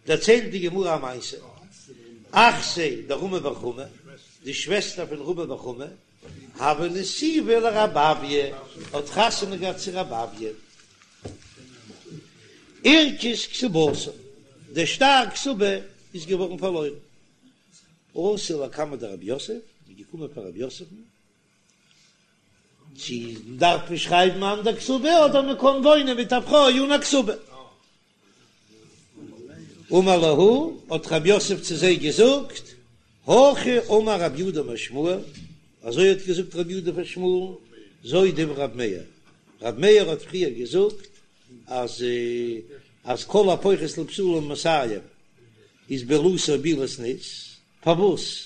דערציילט די גמרא א מעשה, אחתיה דרמי בר חמא, די שוועסטער פון רמי בר חמא, הוה נסיבה לרב אויא, האט חתונה געהאט צו רב אויא. אירכס כתובתה, דער שטר כתובה איז געווארן פארלוירן. אתו לקמיה דרב יוסף, מ'איז געקומען פאר רב יוסף'ן, צו דארף מען שרייבן אן אנדער כתובה אדער מען קען וואוינען מיט א פרוי אן א כתובה. אמר להו, האט רב יוסף צו זיי געזאגט, הכי אמר רב יהודה אמר שמואל, אזוי האט געזאגט רב יהודה פון שמואל, זו דברי רב מאיר, רב מאיר האט פריער געזאגט אז אז כל הפוחת לבתולה ממאתים איז בעילתו בעילת זנות, פארוואס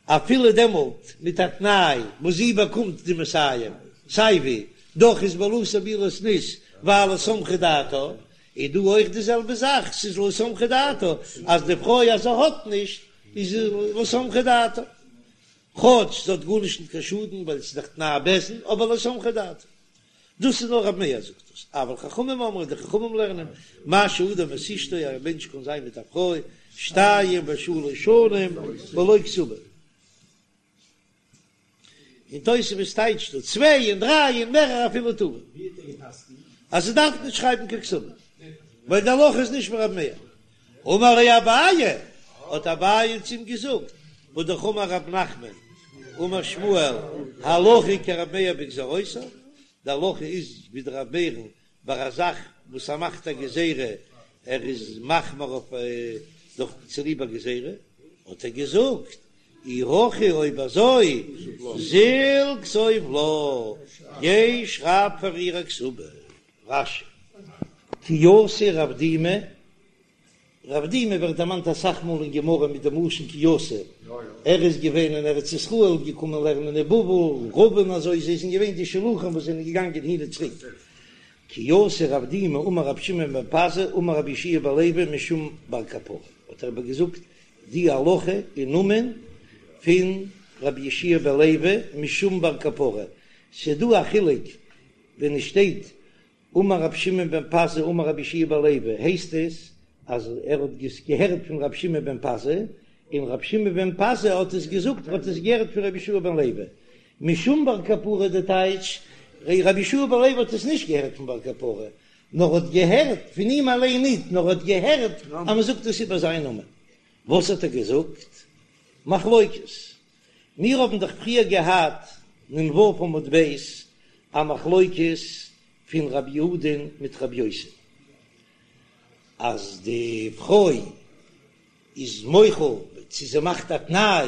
אפילו דעמאלט מיט א תנאי וואס זי באקומט די מאתים סייווי, דאך איז בעילתו בעילת זנות ווייל לא סמכה דעתה, איז דא אויך די זעלבע זאך, ס'איז לא סמכה דעתה אז די פרוי אז זי האט נישט איז לא סמכה דעתה, כאטש זי האט גארנישט נישט קיין שאדן ווייל ס'איז דאך תנאי בית דין, אבער לא סמכה דעתה. דאס איז נאר רב מאיר זאגט דאס, אבל חכמים אומרים, די חכמים לערנען, משהה אדם את אשתו, א מענטש קען זיין מיט א פרוי שתיים ושלש שנים בלא כתובה. און תוספות טייטשט דא צוויי און דריי און מערער אפילו טובא, אז זי דארף נישט שרייבן קיין כתובה, ווייל די הלכה איז נישט ווי רב מאיר. אמר ליה אביי, האט אביי צו אים געזאגט, והא אמר רב נחמן, אמר שמואל, הלכה כרב מאיר בגזירותיו, די הלכה איז ווי דער רב מאיר'ן ביי א זאך וואס ער מאכט א גזירה, ער איז מחמיר אויף דורך צוליב א גזירה, האט ער געזאגט, אי הכי אויב אזוי זיל כתוב לה, גיי שרייב פאר איר א כתובה. רש"י. כי אתא רב דימי, רב דימי ווערט דערמאנט אסאך מאל אין גמרא מיט דעם לשון כי אתא, ער איז געווען אין ארץ ישראל, געקומען לערנען אין בבל, רבין און אזוי, זיי זענען געווען די שלוחים וואס זענען געגאנגען הין און צוריק. כי אתא רב דימי אמר רבי שמעון בן פזי אמר רבי יהושע בן לוי משום בר קפרא, האט ער איבערגעזאגט די הלכה אין נאמען פון רבי יהושע בן לוי משום בר קפרא, ס'איז דא א חילוק ווען עס שטייט אמר רבי שמעון בן פזי אמר רבי יהושע בן לוי הייסט עס אז ער האט עס געהערט פון רבי שמעון בן פזי און רבי שמעון בן פזי האט עס געזאגט ער האט עס געהערט פון רבי יהושע בן לוי משום בר קפרא די טייטש רבי יהושע בן לוי האט עס נישט געהערט פון בר קפרא נאר האט געהערט פון אים אליין ניט נאר האט געהערט אז מען זאגט עס איבער זיין נאמען וואס האט ער געזאגט? מחלוקת מיר האבן דאך פריער געהאט נ"ו עמוד ב' א מחלוקת פון רבי יהודה'ן מיט רבי יוסי אז די פרוי איז מוחל צו זי מאכט א תנאי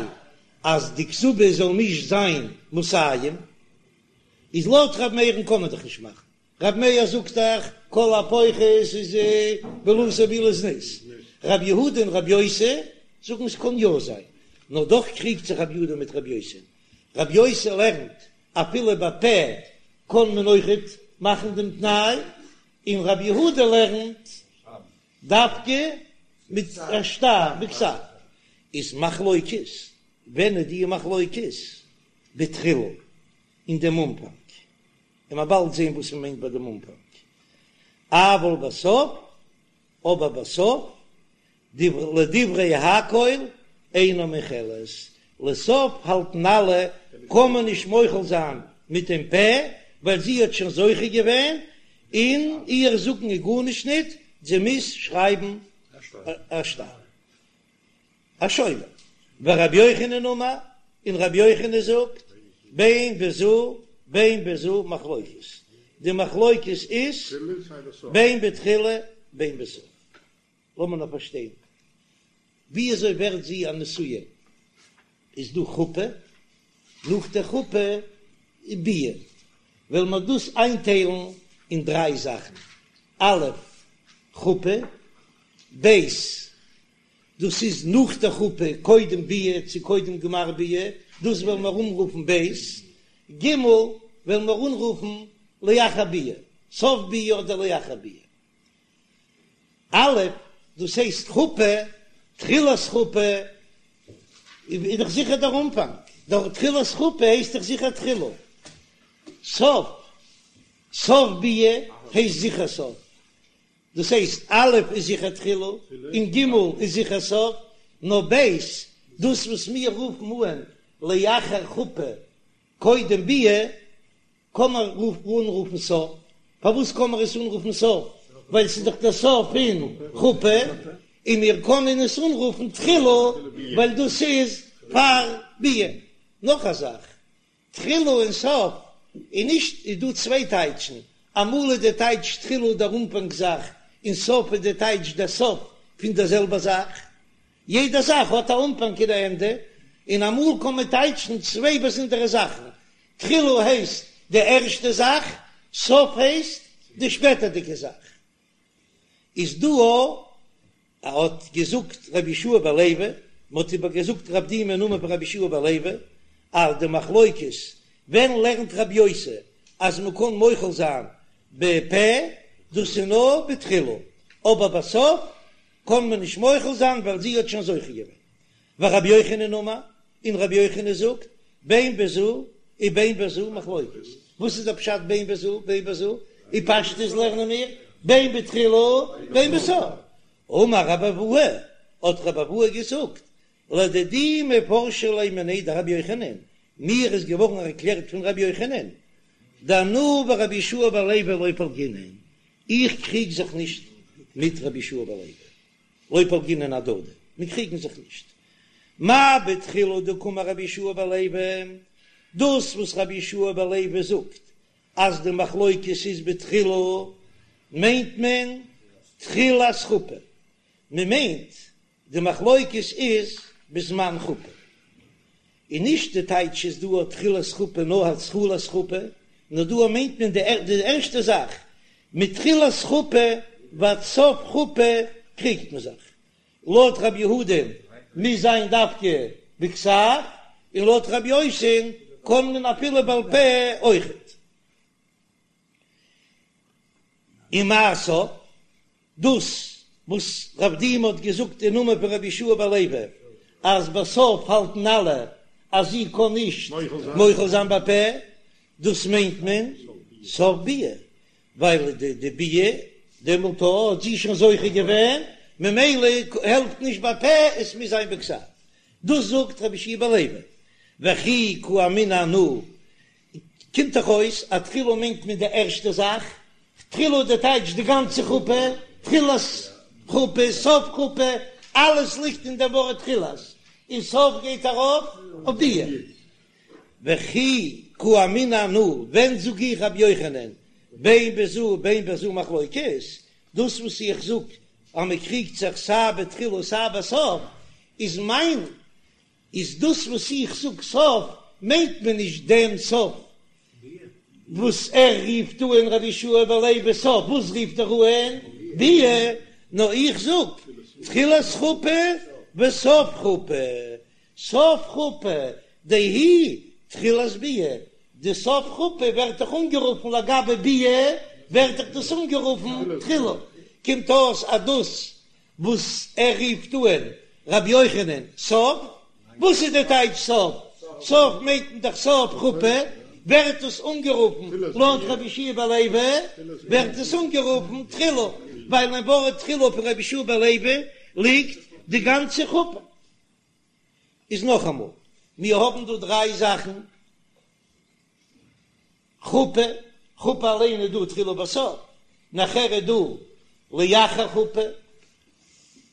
אז די כתובה זאל נישט זיין מאתים, איז לויט רבי מאיר'ן קען מען דאך נישט מאכן ר' מאיר זאגט דאך כל הפוחת איז בעילתו בעילת זנות, ר' יהודה און ר' יוסי זאגן עס קען יא זיין, נאר דאך קריגט זיך ר' יהודה מיט ר' יוסי, ר' יוסי לערנט אפילו בפה קען מען אויכעט מאכן דעם תנאי, און ר' יהודה לערנט דווקא מיט א שטר בכתב, איז מחלוקת, ווען איז די מחלוקת? בתחילה, אין דעם אנפאנג. און מ'עט באלד זעהן וואס מ'מיינט ביי דעם אנפאנג, אבל בסוף, אבער בסוף, לדברי הכל אינה מוחלת, לסוף האלטן אלע קען מען נישט מוחל זיין מיט דעם פה, ווייל זי האט שוין זוכה געווען, און איר זאגן איז גארנישט ניט, זי מוז שרייבן א שטר. א שובר. ורבי יוחנן אמר, און רבי יוחנן זאגט, בין בזו בין בזו מחלוקת, די מחלוקת איז בין בתחילה בין בסוף. לאמיר נאר פארשטיין, ווי אזוי ווערט זי א נשואה? איז דא חופה, נאך די חופה איז ביאה, וועלן מיר דאס איינטיילן אין דריי זאכן, א' חופה, ב' דאס איז נאך די חופה, קודם ביאה צו קודם גמר ביאה, דאס וועלן מיר אנרופן ב', ג' וועלן מיר אנרופן לאחר ביאה, סוף ביאה אדער לאחר ביאה. א', דאס הייסט חופה, תחילת חופה איז דאך זיכער דער אנפאנג, דער תחילת חופה הייסט דאך זיכער תחילה, סוף, סוף ביאה הייסט זיכער סוף. דאס הייסט א' איז זיכער תחילה און ג' איז זיכער סוף, נאר ב', דאס וואס מיר רופן אן לאחר חופה קודם ביאה, קען מען אנרופן סוף, פארוואס קען מען עס אנרופן סוף? ווייל ס'איז דאך דער סוף פון חופה, און מיר קענען עס אנרופן תחילה ווייל דאס איז פאר ביאה. נאך א זאך, תחילה און סוף איז נישט, איז דא צוויי טייטשן, אמאל איז די טייטש תחילה דער אנפאנג זאך, און סוף איז די טייטש דער סוף פון דער זעלבער זאך. יעדע זאך האט א אנפאנג און א ענדע, און אמאל קען מען טייטשן צוויי באזונדערע זאכן, תחילה הייסט די ערשטע זאך, סוף הייסט די שפעטערדיגע זאך. איז דא א האט געזאגט רבי יהושע בן לוי, מען האט איבער געזאגט רב דימי אין נאמען פון רבי יהושע בן לוי, אז די מחלוקת ווען לערנט רבי יוסי אז מען קען מוחל זיין בפה, דאס איז נאר בתחילה, אבער בסוף קען מען נישט מוחל זיין ווייל זי האט שוין זוכה געווען. ורבי יוחנן אמר, און רבי יוחנן זאגט, בין בזו ובין בזו מחלוקת. וואס איז דער פשט בין בזו ובין בזו? אין פשטות לערנען מיר בין בתחילה בין בסוף. אמר רבי אבהו, האט רבי אבהו געזאגט, לדידי מפרשא לי מיניה דרבי יוחנן, מיר איז געווארן ערקלערט פון רבי יוחנן, דאנא ורבי יהושע בן לוי לא פלגינן, איך קריג זיך נישט מיט רבי יהושע בן לוי. לא פלגינן אהדדי, מיר קריגן זיך נישט. מאי בתחילה דקאמר רבי יהושע בן לוי, דאס וואס רבי יהושע בן לוי זאגט אז די מחלוקת איז בתחילה, מיינט מען תחילת חופה, מען מיינט די מחלוקת איז בזמן חופה. און נישט די טייטש איז דא א תחילת חופה נאר התחלת חופה, נאר דא מיינט מען די ערשטע זאך, מתחילת חופה ועד סוף חופה קריגט מען זיך, לויט רבי יהודה'ן מוז זיין דווקא בכתב, און לויט רבי יוסי'ן קען מען אפילו בעל פה אויכעט. ומאי סוף, דאס וואס רב דימי האט געזאגט אין נאמען פון רבי יהושע בן לוי אז בסוף האלטן אלע אז זי קען נישט מוחל זיין בפה, דאס מיינט מען סוף ביאה, ווייל די ביאה דעמאלט האט זי שוין זוכה געווען, ממילא העלפט נישט בפה, עס מוז זיין בכתב. דאס זאגט רבי יהושע בן לוי, וכי קאמינא אנא קומט דאך אויס אז תחילה מיינט מען די ערשטע זאך, תחילה די טייטש די גאנצע חופה, תחילת חופה, סוף חופה, אלעס ליגט אין דעם ווארט תחילת, און סוף גייט ארויף אויף ביאה. וכי קאמינא אנא, ווען זאג איך רבי יוחנן, בין בזו בין בזו מחלוקת, דאס וואס איך זאג אז מען קריגט זיך סיי בתחילה סיי בסוף, איז מיין איז דאס וואס איך זאג סוף מיינט מען נישט דעם סוף וואס ער רופט אן רבי יהושע בן לוי סוף, וואס רופט ער אן ביאה, נאר איך זאג תחילת חופה וסוף חופה, סוף חופה דהיא תחילת ביאה, די סוף חופה ווערט דאך אנגערופן לגבי ביאה ווערט דאך דאס אנגערופן תחילה, קומט אויס אז דאס וואס ער רופט אן רבי יוחנן סוף, וואס איז די טייטש סוף? סוף מיינט מען דאך סוף חופה, ווערט עס אנגערופן לויט רבי יהושע בן לוי ווערט עס אנגערופן תחילה, ווייל אין ווארט תחילה פון רבי יהושע בן לוי ליגט די גאנצע חופה. איז נאכאמאל, מיר האבן דא דריי זאכן. חופה, חופה אליין איז דא תחילה ובסוף, נאכער איז דא לאחר חופה,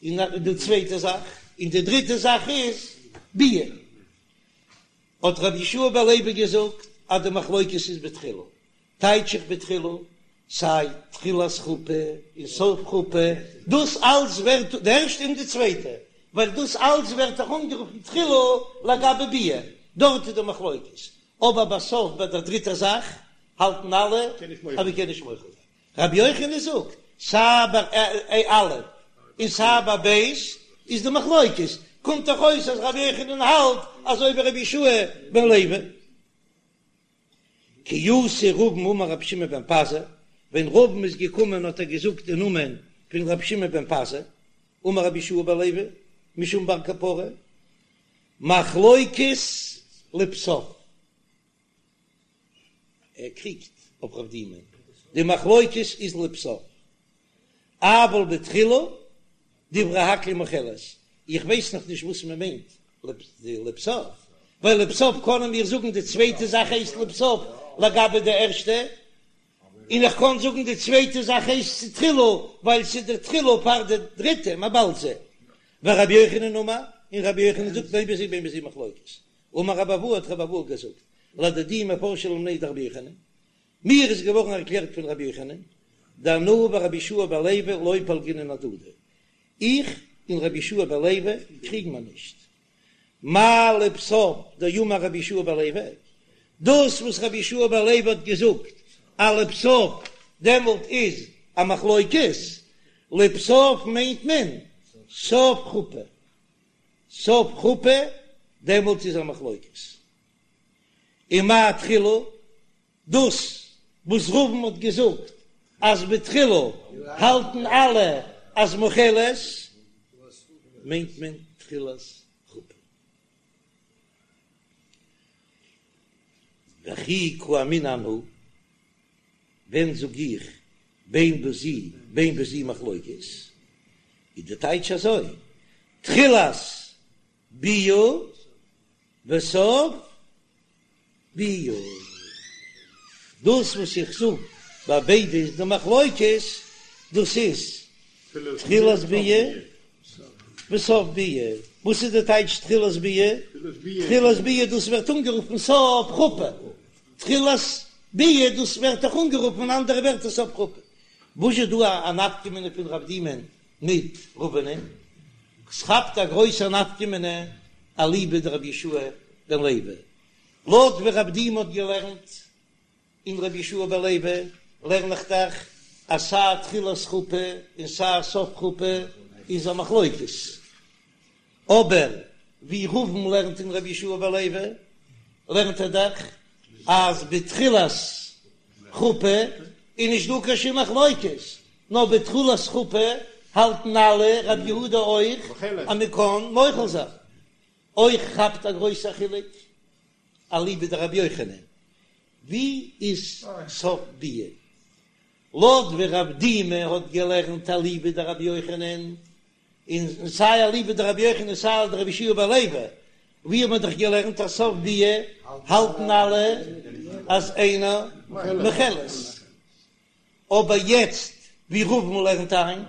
און די צווייטע זאך, און די דריטע זאך איז ביאה. האט רבי יהושע בן לוי געזאגט אז די מחלוקת איז בתחילה, טייטש איך בתחילה, סיי תחילת חופה און סוף חופה, דאס אלץ ווערט די ערשטע און די צווייטע, ווייל דאס אלץ ווערט דאך אנגערופן תחילה לגבי ביאה, דארט איז די מחלוקת, אבער בסוף ביי דער דריטער זאך האלטן אלע אז מען קען נישט מוחל זיין. רבי יוחנן זאגט, סיי ביי א' און סיי ביי ב' איז די מחלוקת, קומט דאך אויס אז רבי יוחנן האלט אזוי ווי רבי יהושע בן לוי. כי אתא רבין אמר רבי שמעון בן פזי, ווען רבין איז געקומען האט ער געזאגט אין נאמען פון רבי שמעון בן פזי, אמר רבי יהושע בן לוי משום בר קפרא, מחלוקת לבסוף, ער קריגט אויף רב דימי, די מחלוקת איז לבסוף. אבל בתחילה דברי הכל מוחלת, איך ווייס נאך נישט וואס מען מיינט לבסוף, ווייל לבסוף קענען מיר זאגן די צווייטע זאך הייסט לבסוף לגבי די ערשטע, און איך קען זאגן די צווייטע זאך הייסט תחילה ווייל ס'איז די תחילה פאר די דריטע, מ'עט באלד זען. ורבי יוחנן אמר, און רבי יוחנן זאגט בין בזו ובין בזו מחלוקת. אמר רבי אבהו האט רבי אבהו געזאגט, לדידי מפרשא לי מיניה דרבי יוחנן, מיר איז געווארן ערקלערט פון רבי יוחנן, דאנא ורבי יהושע בן לוי לא פלגינן אהדדי, איך און רבי יהושע בן לוי קריגן מיר נישט. מאי לבסוף דאמר רבי יהושע בן לוי, דאס וואס רבי יהושע בן לוי האט געזאגט אז לבסוף דעמאלט איז א מחלוקת, לבסוף מיינט מען סוף חופה, סוף חופה דעמאלט איז א מחלוקת. ומאי תחילה, דאס וואס רבין האט געזאגט אז בתחילה האלטן אלע אז מוחלת, מיינט מען תחילת חופה. וכי קאמינא אנא, ווען זאג איך בין בזו בין בזו מחלוקת, איז די טייטש אזוי, תחילת ביאה וסוף ביאה. דאס וואס איך זאג ביי ביידע איז די מחלוקת, דאס איז תחילת ביאה וסוף ביאה. וואס איז די טייטש תחילת ביאה? תחילת ביאה דאס ווערט אנגערופן סוף חופה. תחילת ביאה דאס ווערט אויך אנגערופן אין אנדערע ווערטער סוף חופה. וואס איז דא א נפקא מינה פון רב דימא'ן מיט רבינ'ען? ס'כאפט א גרויסע נפקא מינה אליבא דרבי יהושע בן לוי. לויט ווי רב דימי האט געלערנט אין רבי יהושע בן לוי לערן איך דאך אז סיי תחילת חופה און סיי סוף חופה איז א מחלוקת, אבער ווי רבין לערנט אין רבי יהושע בן לוי לערנט ער דאך אז בתחילת חופה איז נישט דא קיין שום מחלוקת, נאר בתחילת חופה האלטן אלע, רבי יהודה אויך, אז מען קען מוחל זיין. אויך כאפט א גרויסע חילוק אליבא דרבי יוחנן, ווי איז סוף ביאה? לויט ווי רב דימי האט געלערנט אליבא דרבי יוחנן, און סיי אליבא דרבי יוחנן סיי דרבי יהושע בן לוי, ווי האט מען דאך געלערנט אז סוף ביאה האלטן אלע אז אינה מוחלת. אבער יעצט ווי רבין לערנט איין,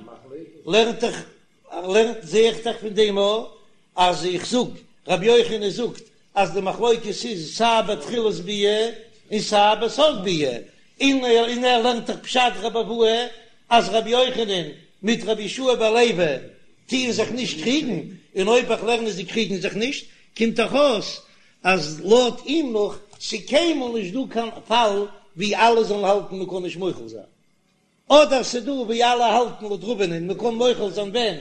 לערנט דאך לערנט זע איך דאך פון דעם א אז איך זאג רבי יוחנן זאגט אז די מחלוקת איז סיי בתחילת ביאה און סיי בסוף ביאה, און און ער לערנט דאך פשט רבי אבהו אז רבי יוחנן מיט רבי יהושע בן לוי טוען זיך נישט קריגן, און אויב איך לערן אז זיי קריגן זיך נישט קומט דאך אויס אז לויט אים נאך ס'קיינמאל נישט דא קיין פאל ווי אלע זאלן האלטן מ'קען נישט מוחל זיין, אדער ס'דא ווי אלע האלטן לויט רבינ'ען מ'קען מוחל זיין ווען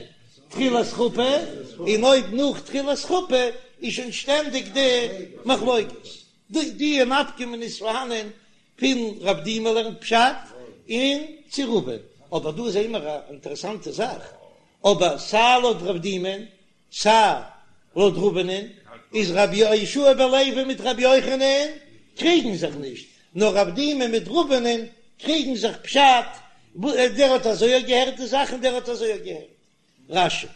תחילת חופה, און אויב נאך תחילת חופה איז שוין שטענדיג די מחלוקת. די די נפקא מינה איז פארהאנען פון רב דימי לערנט פשט און צו רבין, אבער דא זעהן מיר א אינטערעסאנטע זאך, אבער סיי לויט רב דימי'ן סיי לויט רבינ'ען איז רבי יהושע בן לוי מיט רבי יוחנן קריגן זיך נישט, נאר רב דימי מיט רבינ'ען קריגן זיך פשט, דער האט אזוי געהערט די זאך און דער האט אזוי געהערט. רש"י.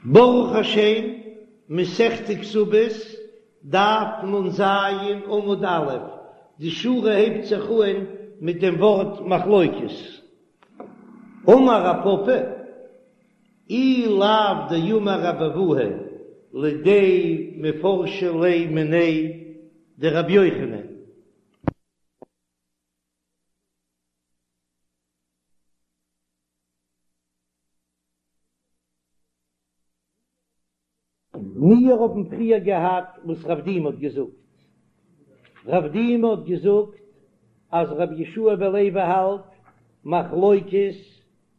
ברוך השם, מסכת כתובות, דף נ"ז עמוד א', די שורה הייבט זיך אהן מיט דעם ווארט מחלוקת. אמר רב פפא, אי לאו דאמר רבי אבהו לידי מפרשא לי מיניה דרבי יוחנן. מיר האבן פריער געהאט וואס רב דימי האט געזאגט, רב דימי האט געזאגט אז רבי יהושע בן לוי האלט מחלוקת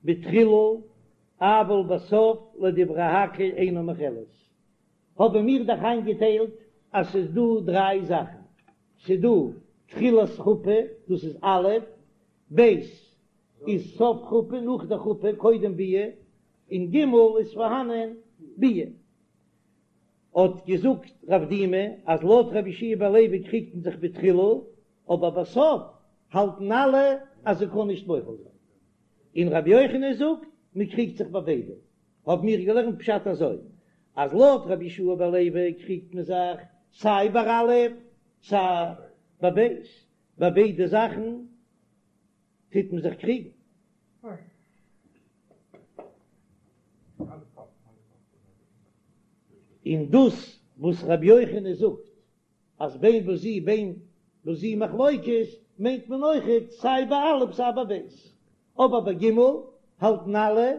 בתחילה אבל בסוף לדברי הכל אינה מוחלת, האבן מיר דאך איינגעטיילט אז ס'איז דא דריי זאכן, ס'איז דא תחילת חופה דאס איז א', ב' איז סוף חופה נאך די חופה קודם ביאה, און ג' איז פארהאנען ביאה. האט געזאגט רב דימי אז לויט רבי יהושע בן לוי קריגט מען זיך בתחילה. אבער בסוף האלטן אלע אז זי קען נישט מוחל זיין. און רבי יוחנן זאגט מען קריגט זיך ביי ביידע, האבן מיר געלערנט פשט אזוי, אז לויט רבי יהושע בן לוי קריגט מען זיך סיי ביי א' סיי ביי ב', ביי ביידע זאכן טוט מען זיך קריגן. און דאס וואס רבי יוחנן זאגט אז בין בזו בין בזו מחלוקת מיינט מען אויכעט סיי ביי א' סיי ביי ב', אבער ביי ג' האלטן אלע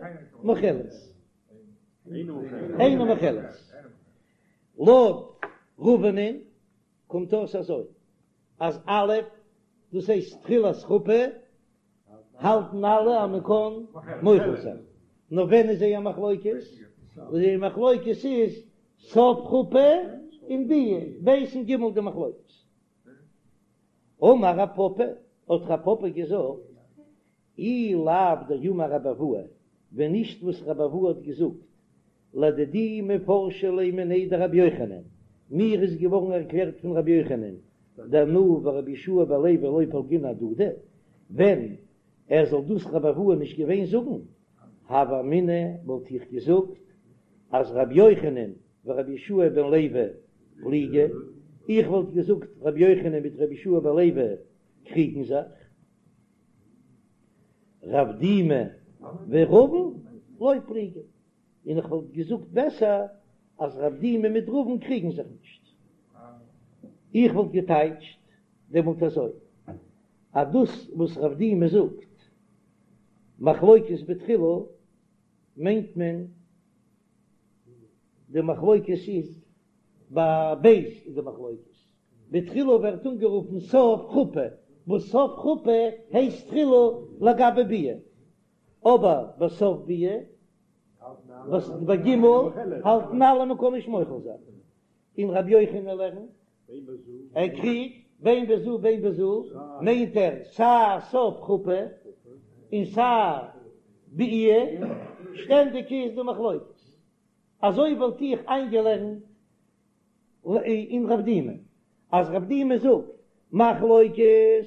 מוחלת, אינה מוחלת. לויט רבינ'ען קומט אויס אזוי אז א' דאס הייסט תחילת חופה האלטן אלע אז מען קען מוחל זיין, נאר ווען איז זייער מחלוקת? זייער מחלוקת איז סוף חופה און ביאה, ב' און ג' די מחלוקת. אמר רב פפא, האט רב פפא געזאגט, אי לאו דאמר רבי אבהו, ווען נישט וואס רבי אבהו האט געזאגט, לדידי מפרשא לי מיניה דרבי יוחנן, מיר איז געווארן ערקלערט פון רבי יוחנן, דאנא ורבי יהושע בן לוי לא פלגינן אהדדי, ווען ער זאל דאס רבי אבהו נישט געווען זאגן, הוה אמינא וואלט איך געזאגט אז רבי יוחנן ורבי יהושע בן לוי פליגי, איך וואלט געזאגט רבי יוחנן מיט רבי יהושע בן לוי קריגן זיך. רב דימי ורבין לא פליגי, און איך וואלט געזאגט בעסער אז רב דימי מיט רבין קריגן זיך נישט. איך וואלט געטייטשט דעמאלט אזוי, אז דאס וואס רב דימי זאגט מחלוקת בתחילה מיינט מען די מחלוקת איז ביי ב' איז די מחלוקת, בתחילה ווערט אנגערופן סוף חופה, וואס סוף חופה הייסט תחילה לגבי ביאה, אבער בסוף ביאה, וואס ביי ג' האלטן אלע מען קען נישט מוחל זיין, און רבי יוחנן לערנט, ער קריגט בין בזו בין בזו, מיינט ער סיי סוף חופה און סיי ביאה, שטענדיג איז די מחלוקת, אזוי וואלט איך איינגעלערנט אין רב דימי, אז רב דימי זאגט מחלוקת,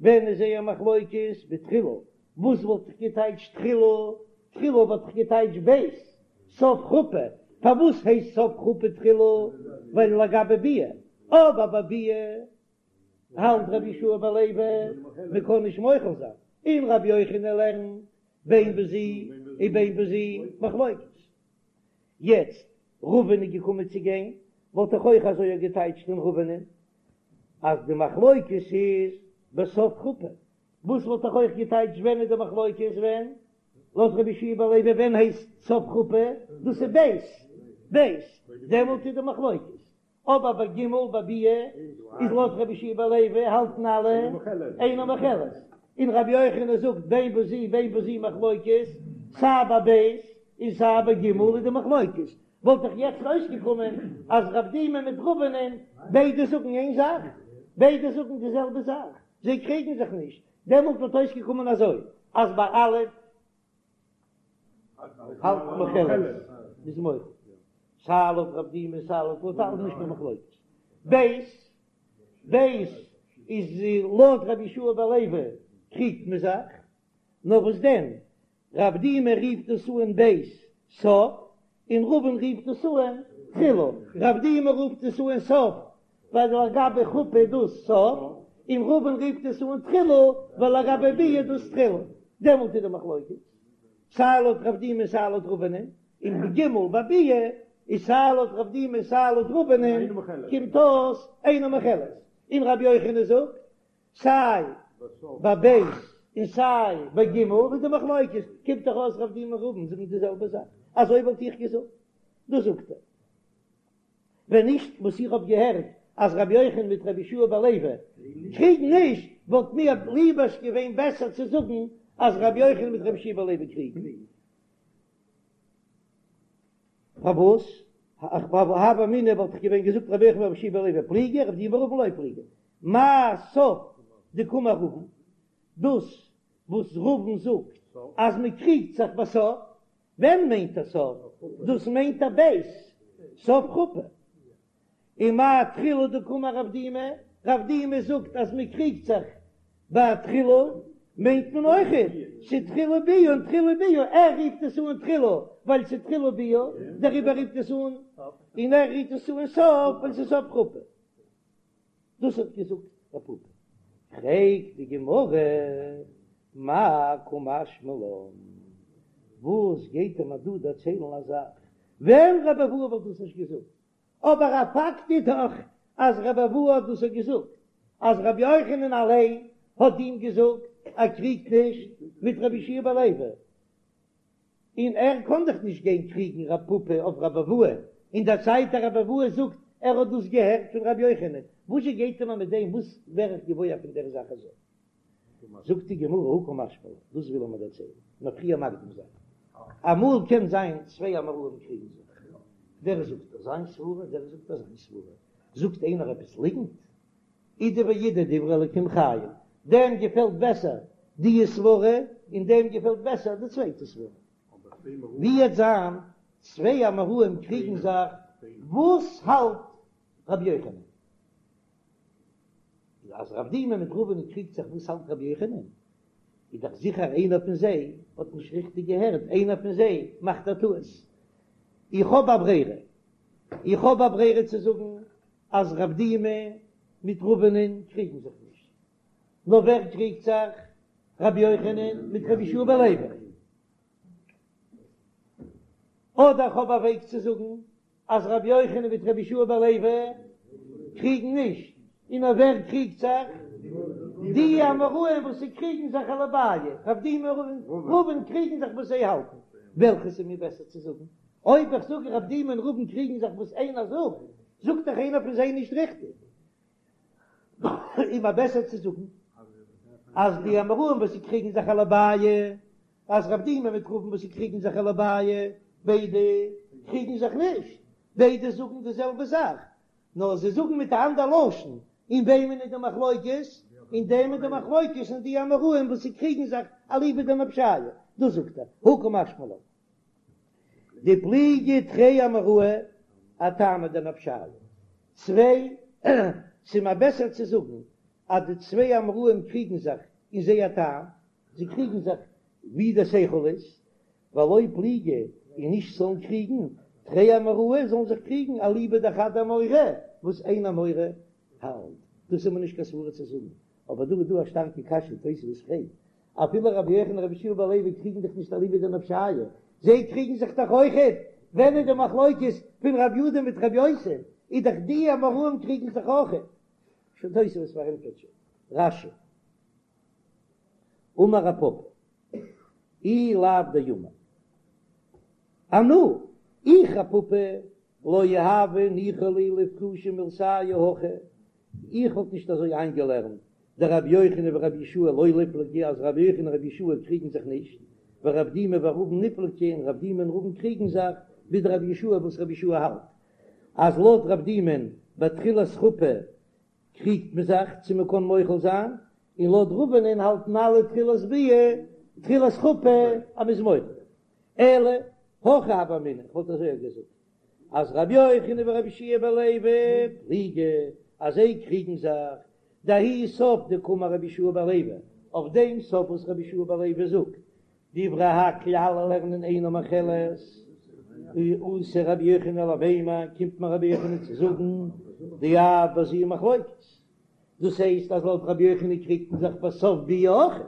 ווען איז זייער מחלוקת? בתחילה, וואס וואלט איך געטייטשט תחילה? תחילה וואלט איך געטייטשט ב', סוף חופה, פארוואס הייסט סוף חופה תחילה? ווייל לגבי ביאה, אבער ביי ביאה האלט רבי יהושע בן לוי מען קען נישט מוחל זיין, און רבי יוחנן לערנט בין בזו ובין בזו מחלוקת. יעצט רבין איז געקומען צו גיין, וואלט איך אויך אזוי געטייטשט אין רבינ'ען אז די מחלוקת איז בסוף חופה, וואס וואלט איך אויך געטייטשט ווען איז די מחלוקת ווען לויט רבי יהושע בן לוי ווען הייסט סוף חופה, דאס איז ב' ב' דעמאלט איז די מחלוקת, אבער ביי ג' ביי ביאה איז לויט רבי יהושע בן לוי האלטן אלע אינה מוחלת, און רבי יוחנן זאגט בין בזו בין בזו מחלוקת, סיי ביי ב' און סיי ביי ג' איז די מחלוקת, וואלט דאך יעצט אויסגעקומען אז רב דימי מיט רבינ'ען ביידע זאגן איין זאך, ביידע זאגן די זעלבע זאך, זיי קריגן זיך נישט, דעמאלט וואלט אויסגעקומען אזוי אז ביי א' האלט מוחלת מ'איז מוחל סיי לויט רב דימי סיי לויט לויט אלע נישט קיין מחלוקת. ב' ב' איז לויט רבי יהושע בן לוי קריגט מען זיך, נאר וואס דען רב דימי רופט דאס אן ב' סוף און רבין רופט דאס אן תחילה, רב דימי רופט עס אן סוף ווייל לגבי חופה איז דאס סוף, און רבין רופט עס אן תחילה ווייל לגבי ביאה איז דאס תחילה, דעמאלט איז די מחלוקת סיי לויט רב דימי סיי לויט רבינ'ען, און בג' ביי ביאה איז סיי לויט רב דימי סיי לויט רבינ'ען קומט אויס אינה מוחלת, און רבי יוחנן זאגט סיי ביי ב' און סיי ביי ג' איז די מחלוקת, קומט דאך אויס רב דימי און רבין זאגן די זעלבע זאך, אזוי וואלט איך געזאגט, דאס זאגט ער. ווען נישט וואס איך האב געהערט אז רבי יוחנן מיט רבי יהושע בן לוי קריגן נישט, וואלט מיר ליבערשט געווען בעסער צו זאגן אז רבי יוחנן מיט רבי יהושע בן לוי קריגן. פארוואס? הוה אמינא וואלט איך געווען געזאגט רבי יוחנן ורבי יהושע בן לוי פליגי, רב דימי ורבין לא פליגי. מאי סוף דקאמר רבין, דאס וואס רבין זאגט אז מען קריגט זיך בסוף, ווען מיינט ער סוף? דאס מיינט ער ב' סוף חופה. און מאי תחילה דקאמר רב דימי? רב דימי זאגט אז מען קריגט זיך ביי תחילה, מיינט מען אויכעט ס'תחילה ביאה און תחילה ביאה, ער רופט עס אן תחילה ווייל ס'תחילה ביאה, דעריבער רופט עס אן, און ער רופט עס אן סוף ווייל ס'סוף חופה. דאס האט געזאגט רב פפא. פרעגט די גמרא, מאי קא משמע לן, וואס גייט ער מיר דא דערציילן א זאך ווען רבי אבהו וואלט דאס נישט געזאגט, אבער א פאקט איז דאך אז רבי אבהו האט דאס געזאגט, אז רבי יוחנן אליין האט אים געזאגט ער קריגט נישט מיט רבי יהושע בן לוי, און ער קען דאך נישט גיין קריגן רב פפא אויף רבי אבהו, אין דער צייט אז רבי אבהו זאגט ער האט דאס געהערט פון רבי יוחנן, וואזשע גייט ער מיר מיט דעם, וואס ווער איך געוואויר פון דער זאך אזוי? זאגט די גמרא הא קא משמע לן, דאס וויל ער מיר דערציילן, נאר פריער מקדים זיין, אמאל קען זיין צוויי אמוראים קריגן זיך, דער זאגט אזיין סברה, דער זאגט אזיין סברה, זאגט איינער עפעס ליגנט, אידי ואידי דברי אלקים חיים, דעם געפעלט בעסער די סברה און דעם געפעלט בעסער די צווייטע סברה. ווי וועט זיין צוויי אמוראים קריגן זיך, וואס האלט רבי יוחנן? אז רב דימי מיט רבינ'ען קריגט זיך וואס האלט רבי יוחנן, איז דאך זיכער איינער פון זיי האט נישט ריכטיג געהערט, איינער פון זיי מאכט א טעות. איך האב א ברירה, איך האב א ברירה צו זאגן אז רב דימי מיט רבינ'ען קריגן זיך נישט, נאר ווער קריגט זיך? רבי יוחנן מיט רבי יהושע בן לוי. אדער איך האב א וועג צו זאגן אז רבי יוחנן מיט רבי יהושע בן לוי קריגן נישט, און אויף ווער קריגט זיך? די אמוראים וואס זיי קריגן זיך אליבאי רב דימי און רבין קריגן זיך וואס זיי האלטן, וועלכעס איז מיר בעסער צו זאגן? אויב איך זאג רב דימי און רבין קריגן זיך וואס איינער זאגט, זאגט דאך איינער פון זיי נישט ריכטיג. איז מיר בעסער צו זאגן אז די אמוראים וואס זיי קריגן זיך אליבאי אז רב דימי מיט רבין וואס זיי קריגן זיך אליבאי ביידע קריגן זיך נישט, ביידע זאגן די זעלבע זאך, נאר זיי זאגן מיט א אנדער לשון, אין וועמען איז די מחלוקת? אין דעם איז די מחלוקת אין די אמוראים וואס זיי קריגן זיך אליבא דנפשייהו, דאס זאגט ער, הא קא משמע לן. דפליגי תרי אמוראי אטעמא דנפשייהו. צוויי, ס'איז מיר בעסער צו זאגן אז די צוויי אמוראים קריגן זיך אין זייער טעם, זיי קריגן זיך ווי דער שכל איז, ולא פליגי און נישט זאלן קריגן, תרי אמוראי זאלן זיך קריגן אליבא דחד אמורא, וואס איין אמורא האלט. דאס איז מיר נישט קיין סברא צו זאגן, אבער דא איז דא א שטארקע קשיא, תוספות פרעגט, אפילו רבי יוחנן און רבי יהושע בן לוי קריגן זיך נישט אליבא דנפשייהו, זיי קריגן זיך דאך אויכעט, ווען איז די מחלוקת פון רבי יהודה מיט רבי יוסי, איז דאך די אמוראים קריגן זיך אויכעט. שוין תוספות פארענטפערט שוין רש"י. אמר רב פפא, אי לאו דאמר אנא, איך רב פפא, לא הוה ניחא לי לאיפרושי מילתייהו הכי, איך וואלט נישט אזוי איינגעלערנט דרבי יוחנן ורבי יהושע לא ליפלגי אז רבי יוחנן און רבי יהושע קריגן זיך נישט, ורב דימי ורבין ניפלגי און רב דימי און רבין קריגן זיך, בדרבי יהושע וואס רבי יהושע האלט אז לויט רב דימי'ן בתחילת חופה קריגט מען זיך צו מען קען מוחל זיין, און לויט רבינ'ען האלטן אלע תחילת ביאה תחילת חופה אז מ'איז מוחל. אלא הכי הוה אמינא, כ'וואלט אזוי געזאגט אז רבי יוחנן ורבי יהושע בן לוי פליגי אז זיי קריגן זיך דההוא סוף דקאמר רבי יהושע בן לוי אויף דעם סוף וואס רבי יהושע בן לוי זאגט דברי הכל אלע לערנען אינה מוחלת אתא רבי יוחנן למימר קומט מיר רבי יוחנן צו זאגן דאף בזו מחלוקת דאס הייסט אז לויט רבי יוחנן קריגט מען זיך בסוף ביאה אויך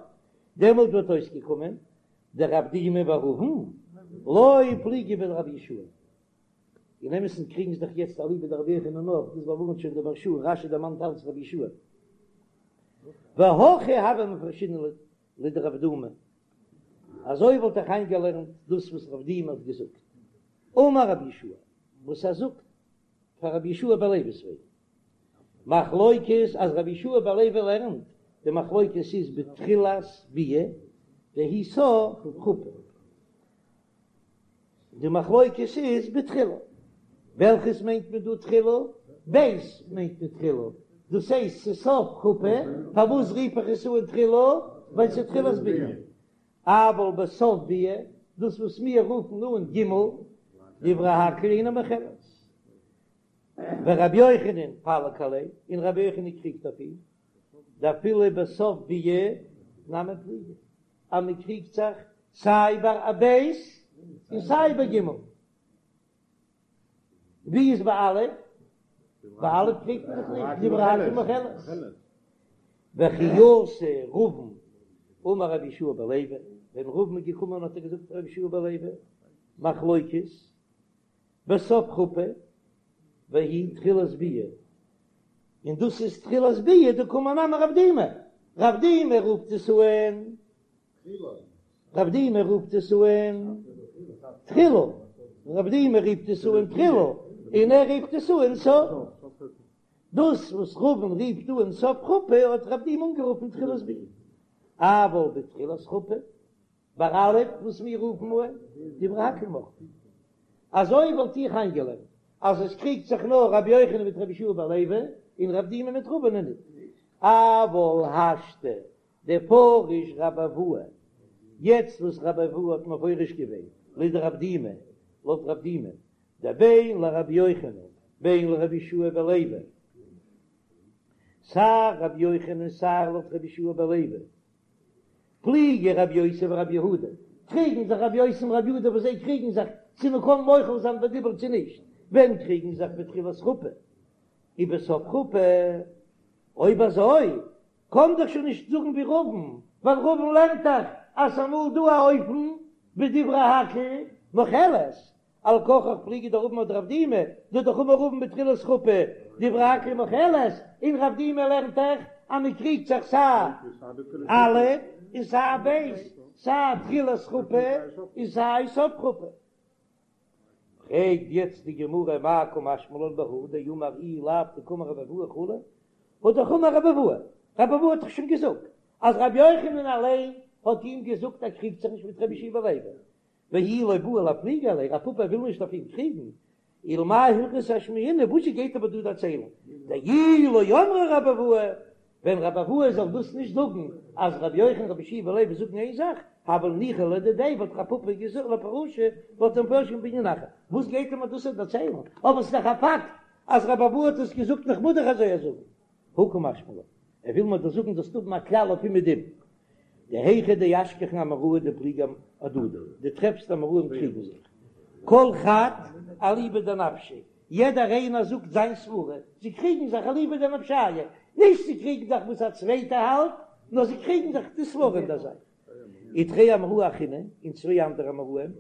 דעמאלט וואלט אויסגעקומען דרב דימי ורבין לא פליגי בדרבי יהושע אין אמת'ן קריגן זיך דאך יעצט אליבא דרבי יוחנן נאך דאס באווארנט שוין דער מהרש"א רש"י דערמאנט אלץ רבי יהושע והכי הוה מפרשינן לדרב דימי אזוי וואלט איך איינגעלערנט דאס וואס רב דימי האט געזאגט אמר רבי יהושע וואס ער זאגט פאר רבי יהושע בן לוי'ס וועגן מחלוקת אז רבי יהושע בן לוי לערנט די מחלוקת איז בתחילת ביאה והיא סוף חופה די מחלוקת איז בתחילה וועלכעס מיינט מען דא תחילה? ב' מיינט מען תחילה דאס הייסט ס'איז סוף חופה פארוואס רוף איך עס אן תחילה? ווייל ס'איז תחילת ביאה אבל בסוף ביאה דאס וואס מיר רופן אן ג' דברי הכל אינה מוחלת. ורבי יוחנן פליג עליה, און רבי יוחנן קריגט אויף אים, דאפילו בסוף ביאה נמי פליגי, אז מען קריגט זיך סיי ביי א ב' און סיי ביי ג'. ווי איז ביי א'? ביי א' קריגט מען זיך נישט, דברי הכל מוחלת. וכי אתא רבין אמר רבי יהושע בן לוי, ווען רבין איז געקומען האט ער געזאגט רבי יהושע בן לוי, מחלוקת, בסוף חופה, והיא תחילת ביאה, און דאס איז תחילת ביאה, דקאמר נמי רב דימי, רב דימי רופט עס אן רב דימי רופט עס אן תחילה, רב דימי רופט עס אן תחילה, און ער רופט עס אן סוף. דאס וואס רבין רופט אן סוף חופה האט רב דימי אנגערופן תחילת ביאה. אבל בתחילת חופה, ביי א' וואס מיר רופן אן דברי הכל מוחלין. אזוי וואלט איך איינגעלערנט אז עס קריגט זיך נאר רבי יוחנן מיט רבי יהושע בן לוי און רב דימי מיט רבין ניט. אבל השתא דפריש רבי אבהו, יעצט וואס רבי אבהו האט מפרש געווען לדרב דימי, לויט רב דימי, דבין לרבי יוחנן בין לרבי יהושע בן לוי, סיי רבי יוחנן סיי לויט רבי יהושע בן לוי, פליגי רבי יוסי ורבי יהודה, קריגן זיך רבי יוסי און רבי יהודה וואס זיי קריגן זיך צו מען קען מוחל זיין בדיבור צו נישט, ווען קריגן זיך בתחילת חופה ובסוף חופה, אויב אזוי קען דאך שוין נישט זאגן ווי רבין, ווייל רבין לערנט דאך אז ס'אמאל דא א אופן בדברי הכל מוחלת, על כרחך פליגא דרבין אדרב דימי, דדאך אמר רבין בתחילת חופה דברי הכל מוחלת, און רב דימי לערנט דאך אז מען קריגט זיך סיי א' און סיי ב', סיי תחילת חופה און סיי סוף חופה. פרעגט יעצט די גמרא מאי קא משמע לן בהא דאמר אי לאו דקאמר רבי אבהו כו', האט דאך אמר רבי אבהו, רבי אבהו האט דאך שוין געזאגט אז רבי יוחנן אליין האט אים געזאגט ער קריגט זיך נישט מיט רבי יהושע בן לוי, ואי לא בעי לאפלוגי עליה, רב פפא וויל נישט אויף אים קריגן, ולמאי הלכתא אשמעינן, וואס גייט ער דא דערציילן, דאי לא אמרה רבי אבהו, ווען רבי אבהו זאל דאס נישט זאגן אז רבי יוחנן רבי יהושע בן לוי זאגן איין זאך, הוה ניחא ליה לדידיה וואלט רב פפא געזאגט לפרושי וואלט ער מפרש געווען בענין אחר, וואס גייט ער מיר דאס דערציילן, אבער ס'איז דאך א פאקט אז רבי אבהו האט עס געזאגט און כ'מוז דאך אזוי זאגן. הא קא משמע לן, ער וויל מיר דאס זאגן זאלסט האבן א כלל אויף אומעדום, דהיכא דאשכחן אמוראי דפליגי אהדדי, דו טרעפסט אמוראים קריגן זיך, כל חד אליבא דנפשיה, יעדער איינער זאגט זיין סברה, זיי קריגן זיך אליבא דנפשיה, נישט זיי קריגן זיך וואס א צווייטער האלט, נאר זיי קריגן זיך די סברה אין דער זאך. ותרי אמוראי אחריני, און צוויי אנדערע אמוראים,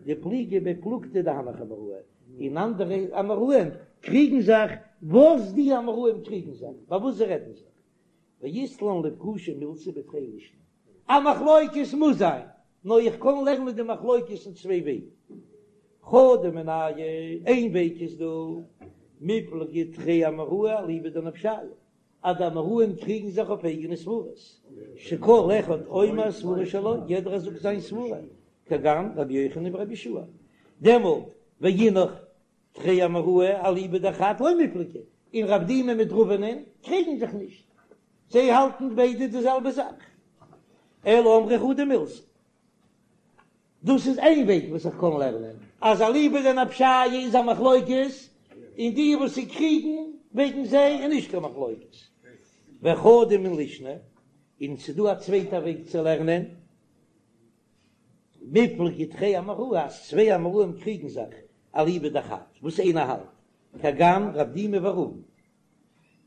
דפליגי בפלוגתא דהנך אמוראי, און אנדערע אמוראים קריגן זיך וואס די אמוראים קריגן זיך, ביי וואס זיי רעדן זיך. ואית לן לפרושי מילתא בתרי לישני. א מחלוקת מוז זיין, נאר איך קען לערנען די מחלוקת אין צוויי וועגן. חדא מינייהו, איין וועג איז דא, מיפלגי תרי אמוראי אליבא דנפשייהו, אז די אמוראים קריגן זיך אויף אייגענע סברות, שכל אחד אומר סברה שלו, יעדער זאגט זיין סברה, כגון רבי יוחנן ורבי יהושע דעמאלט ואינך תרי אמוראי אליבא דחד לא מיפלגי, און רב דימי מיט רבינ'ען קריגן זיך נישט, זיי האלטן ביידע די זעלבע זאך, אלא אמרי חדא מילתא. דאס איז איין וועג וואס איך קען לערנען, אז אליבא דנפשייהו איז א מחלוקת, און די וואס זיי קריגן וועגן זיי איז נישט קיין מחלוקת. וחדא מן לישנא, און ס'איז דא א צווייטע וועג צו לערנען, מיפלגי תרי אמוראי, אז צוויי אמוראים קריגן זיך אליבא דחד, וואס איינער האלט, כגון רב דימי ורבין,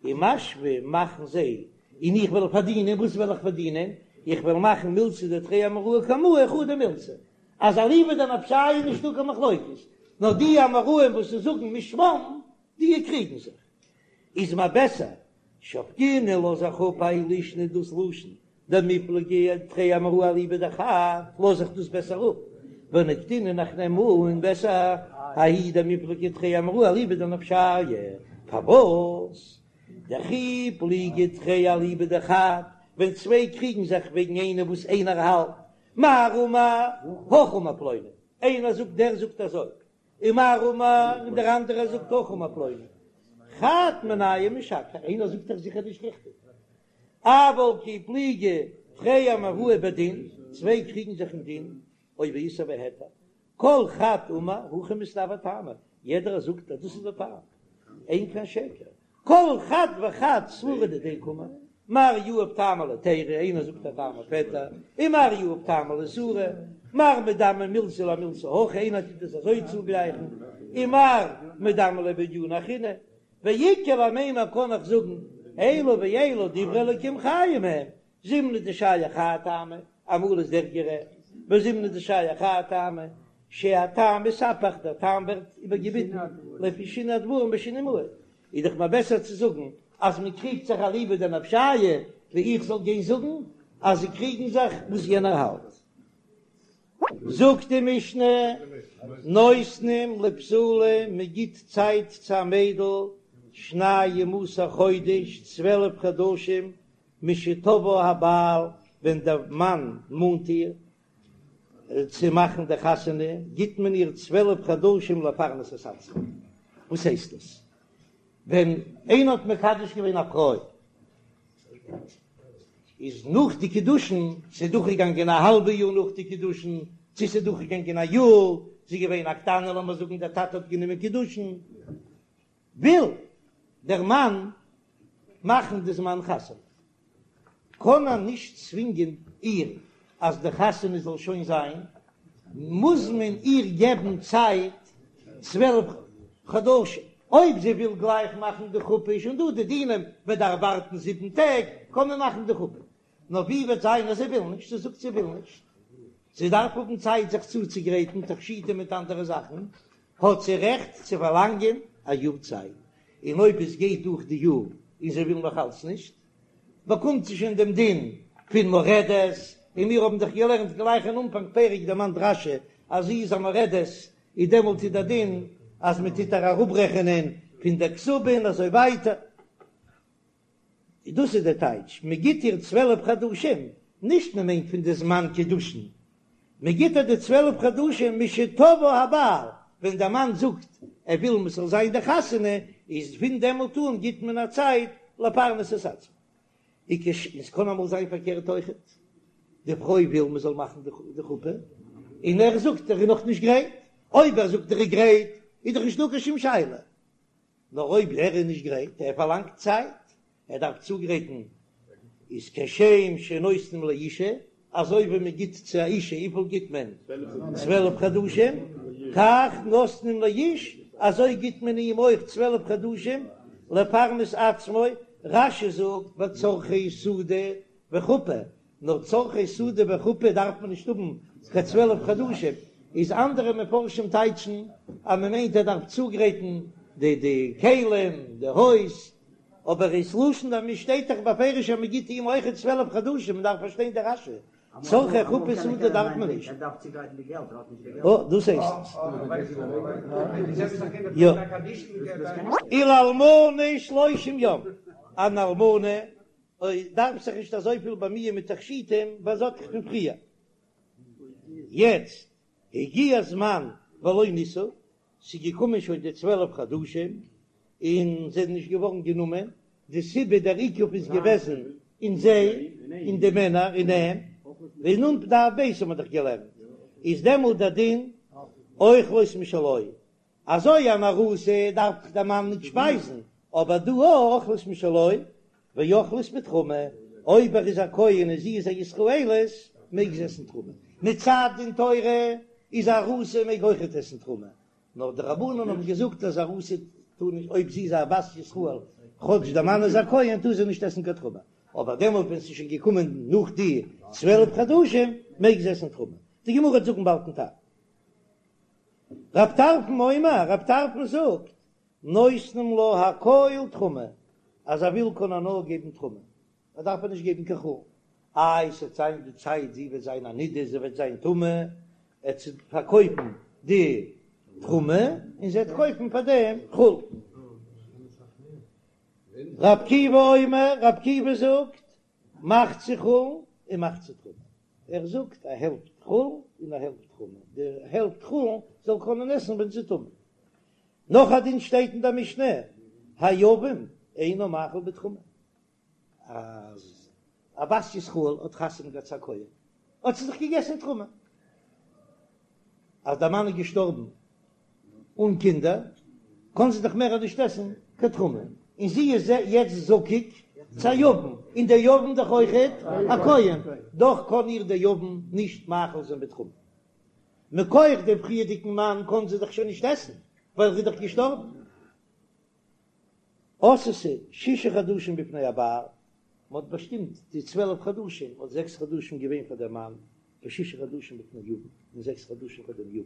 ומשוו מאכן זיי, און איך וועל פארדינען, וואס וועל איך פארדינען? איך וועל מאכן מילתא דתרי אמוראי קמאי חדא מילתא, אז אליבא דנפשייהו איז נישטא קיין מחלוקת, נאר די אמוראים וואס זיי זאגן משמם, די קריגן זיך. איז מיר בעסער שבקינן לאז איך אפ האי לישנא דאס לשון דמיפלגי תרי אמוראי אליבא דחד לאז איך דאס בעסער אפ ונקטינן איך נעם אן בעסער ההיא דמיפלגי תרי אמוראי אליבא דנפשייהו פארוואס דכי פליגי תרי אליבא דחד ווען צוויי קריגן זיך וועגן איינער וואס איינער האלט מר אמר הכי אמר פלוני איינער זאגט דער זאגט אזוי ומר אמר און דער אנדערער זאגט הכי אמר פלוני חד מינייהו משקר איינער זאגט דאך זיכער נישט ריכטיג אבל כי פליגי תרי אמוראי בדין צוויי קריגן זיך אין דין או באיסור והיתר כל חד אמר הכי מסתברא טעמא יעדער זאגט אז דאס איז דער טעם. אין כאן שקר, כל חד וחד סברא דידיה קאמר, מר יהיב טעמא להיתירא, איינער זאגט א טעם אויף היתר, און מר יהיב טעמא לאיסורא, מר מדמי מילתא למילתא הכי, איינער טוט עס אזוי צוגלייכן, און מר מדמי ליה בענינא אחרינא, ואיכא למימר קען איך זאגן, אלו ואלו דברי אלקים חיים הם, זימנא דשייך האי טעמא, אמאל איז דער גערעכט, וזימנא דשייך האי טעמא, שהטעם מתהפך, דער טעם ווערט איבערגעביטן לפי שינוי הדברים בשינוי מועד, איז דאך מער בעסער צו זאגן אז מען קריגט זיך אליבא דנפשייהו, ווי איך זאל גיין זאגן אז זיי קריגן זיך וואס יענער האלט. זאגט די משנה, נותנים לבתולה, מען גיט צייט צו א מיידל שנים עשר חודש, 12 חדשים, משתבעה הבעל, ווען דער מאן מאנט איר צו מאכן די חתונה, גיט מען איר 12 חדשים לפרנס את עצמה. וואס הייסט דאס? ווען איינער האט מקדש געווען א פרוי, איז נאך די קידושין, ס'איז דורכגעגאנגען א האלבע יאר נאך די קידושין, צו ס'איז דורכגעגאנגען א יאר, זי איז געווען א קטנה, לאמיר זאגן דער טאטע האט גענומען קידושין, וויל דער מאן מאכן די זמן חתונה, קען ער נישט צווינגען איר אז די חתונה זאל שוין זיין, מוז מען איר געבן צייט 12 חדשים, אויב זי וויל גלייך מאכן די חופה איז שוין דא די דינים, מען דארף ווארטן זיבן טעג קען מען מאכן די חופה, נאר ווי וועט זיין אז זי וויל נישט, זי זאגט זי וויל נישט, זי דארף האבן צייט זיך צוצוגרייטן, תכשיטים מיט אנדערע זאכן, האט זי רעכט צו פארלאנגען א יאר צייט, און אויב עס גייט דורך די יאר און זי וויל נאך אלץ נישט, באקומט זי שוין דעם דין פון מורדת, און מיר האבן דאך געלערנט גלייך אין אנפאנג פרק דערמאנט רש"י אז זי איז א מורדת, איז דעמאלט איז דער דין אז מען טוט איר אראפרעכענען פון דער כתובה און אזוי ווייטער. דאס איז דער טייטש, מען גיט איר 12 חדשים, נישט מען מיינט פון די זמן קידושין, מען גיט איר די 12 חדשים משתבעה הבעל, ווען דער מאן זאגט ער וויל מען זאל זיין די חתונה, איז פון דעמאלט אן גיט מען א צייט לפרנס את עצמה. עס קען אמאל זיין פארקערט אויכעט, די פרוי וויל מען זאל מאכן די חופה, און ער זאגט ער איז נאכנישט גרייט, אויב ער זאגט ער איז גרייט איז דאך נישטא קיין שום שאלה, נאר אויב ער איז נישט גרייט, ער פארלאנגט צייט, ער דארף צוגרייטן, איז כשם שנותנים לאישה, אזוי ווי מען גיט צו א אישה, וויפיל גיט מען? 12 חדשים, כך נותנים לאיש, אזוי גיט מען אים אויך 12 חדשים, לפרנס עצמו, רש"י זאגט בצרכי סעודה וחופה, נאר צרכי סעודה וחופה דארף מען נישט האבן קיין 12 חדשים, איז אנדערע מפרשים טייטשן אז מען מיינט ער דארף צוגרייטן די די כלים, די הויז, אבער איז לשון דער שטייט דאך בפירוש אז מען גיט אים אויכעט 12 חדשים, מען דארף פארשטיין די רש"י, צרכי חופה סעודה דארף מען נישט. אה, דאס הייסט עס. יא. ולאלמנה שלושים יום, אן אלמנה אוי דארף זיך נישט אזויפיל באמיען מיט תכשיטים ווייל זי האט דאך פון פריער. יעצט הגיע הזמן ולא נישאו, ס'איז געקומען שוין די 12 חדשים און זיי זענען נישט געווארן גענומען, די סיבה דער עיכוב איז געוועזן אין זיי, אין די מענער, אין אים, ווי אין דף ב' האט מען דאך געלערנט, איז דעמאלט דער דין אוכלות משלו, אזוי אן ארוסה דארף דאך דער מאן נישט שפייזן, אבער דא אוכלות משלו ואוכלות בתרומה, אויב ער איז א כהן און זי איז א ישראלית מעג זי עסן תרומה, מצד דין תורה איז א ארוסה מעג אויכעט עסן תרומה, נאר די רבנן האבן געזאגט אז ארוסה טאר נישט אויב זי איז א בת ישראל כאטש דער מאן איז א כהן טאר זי נישט עסן קיין תרומה, אבער דעמאלט ווען ס'איז שוין געקומען נאך די 12 חדשים מעג זי עסן תרומה, די גמרא וועט זאגן באלד דעם טעם. רב טרפון אומר, רב טרפון זאגט, נותנים לה הכל תרומה, אז ער וויל קען ער נאר געבן תרומה, ער דארף איר נישט געבן קיין חולין, איי ס'וועט זיין די צייט זי וועט זיין א נידה זי וועט זיין טמא, ער וועט פארקויפן די תרומה און זי וועט קויפן פאר דעם חולין. רב עקיבא אומר, רב עקיבא זאגט, מחצה חולין און מחצה תרומה. ער זאגט א העלפט חולין און א העלפט תרומה, די העלפט חולין זאל קענען עסן ווען זי איז טמא. נאך א דין שטייט אין דער משנה, היבם אינו מאכיל בתרומה, אז א בת ישראל האט חתונה געהאט צו א כהן, האט זי דאך געגעסן תרומה, אז דער מאן איז געשטארבן אן קינדער, קען זי דאך מער נישט עסן קיין. קיין תרומה, און זי איז יעצט זקוק צו א יבם, און דער יבם דאך אויכעט א כהן, דאך קען איר דער יבם נישט מאכיל זיין בתרומה. מכח דעם פריערדיגן מאן קען זי דאך שוין נישט עסן, ווייל ער איז דאך געשטארבן. עשתה שישה חדשים בפני הבעל, מען האט באשטימט די 12 חדשים, האט זעקס חדשים געווען פאר דעם מאן, ושישה חדשים בפני יבם, און זעקס חדשים פאר דעם יבם,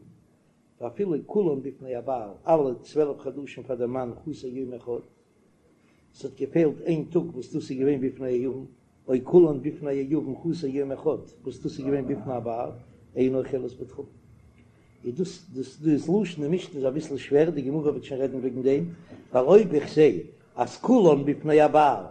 ואפילו כולן בפני הבעל, אלע 12 חדשים פאר דעם מאן חסר יום אחד, ס'האט געפעלט איין טאג וואס דאס איז געווען בפני היבם, או כולן בפני היבם חסר יום אחד וואס דאס איז געווען בפני הבעל, אינה אוכלת בתרומה. איז דאס דאס דאס לשון אין משנה איז אביסל שווער, די גמרא וועט שוין רעדן וועגן דעם, ווייל אויב איך זע אז כולן בפני הבעל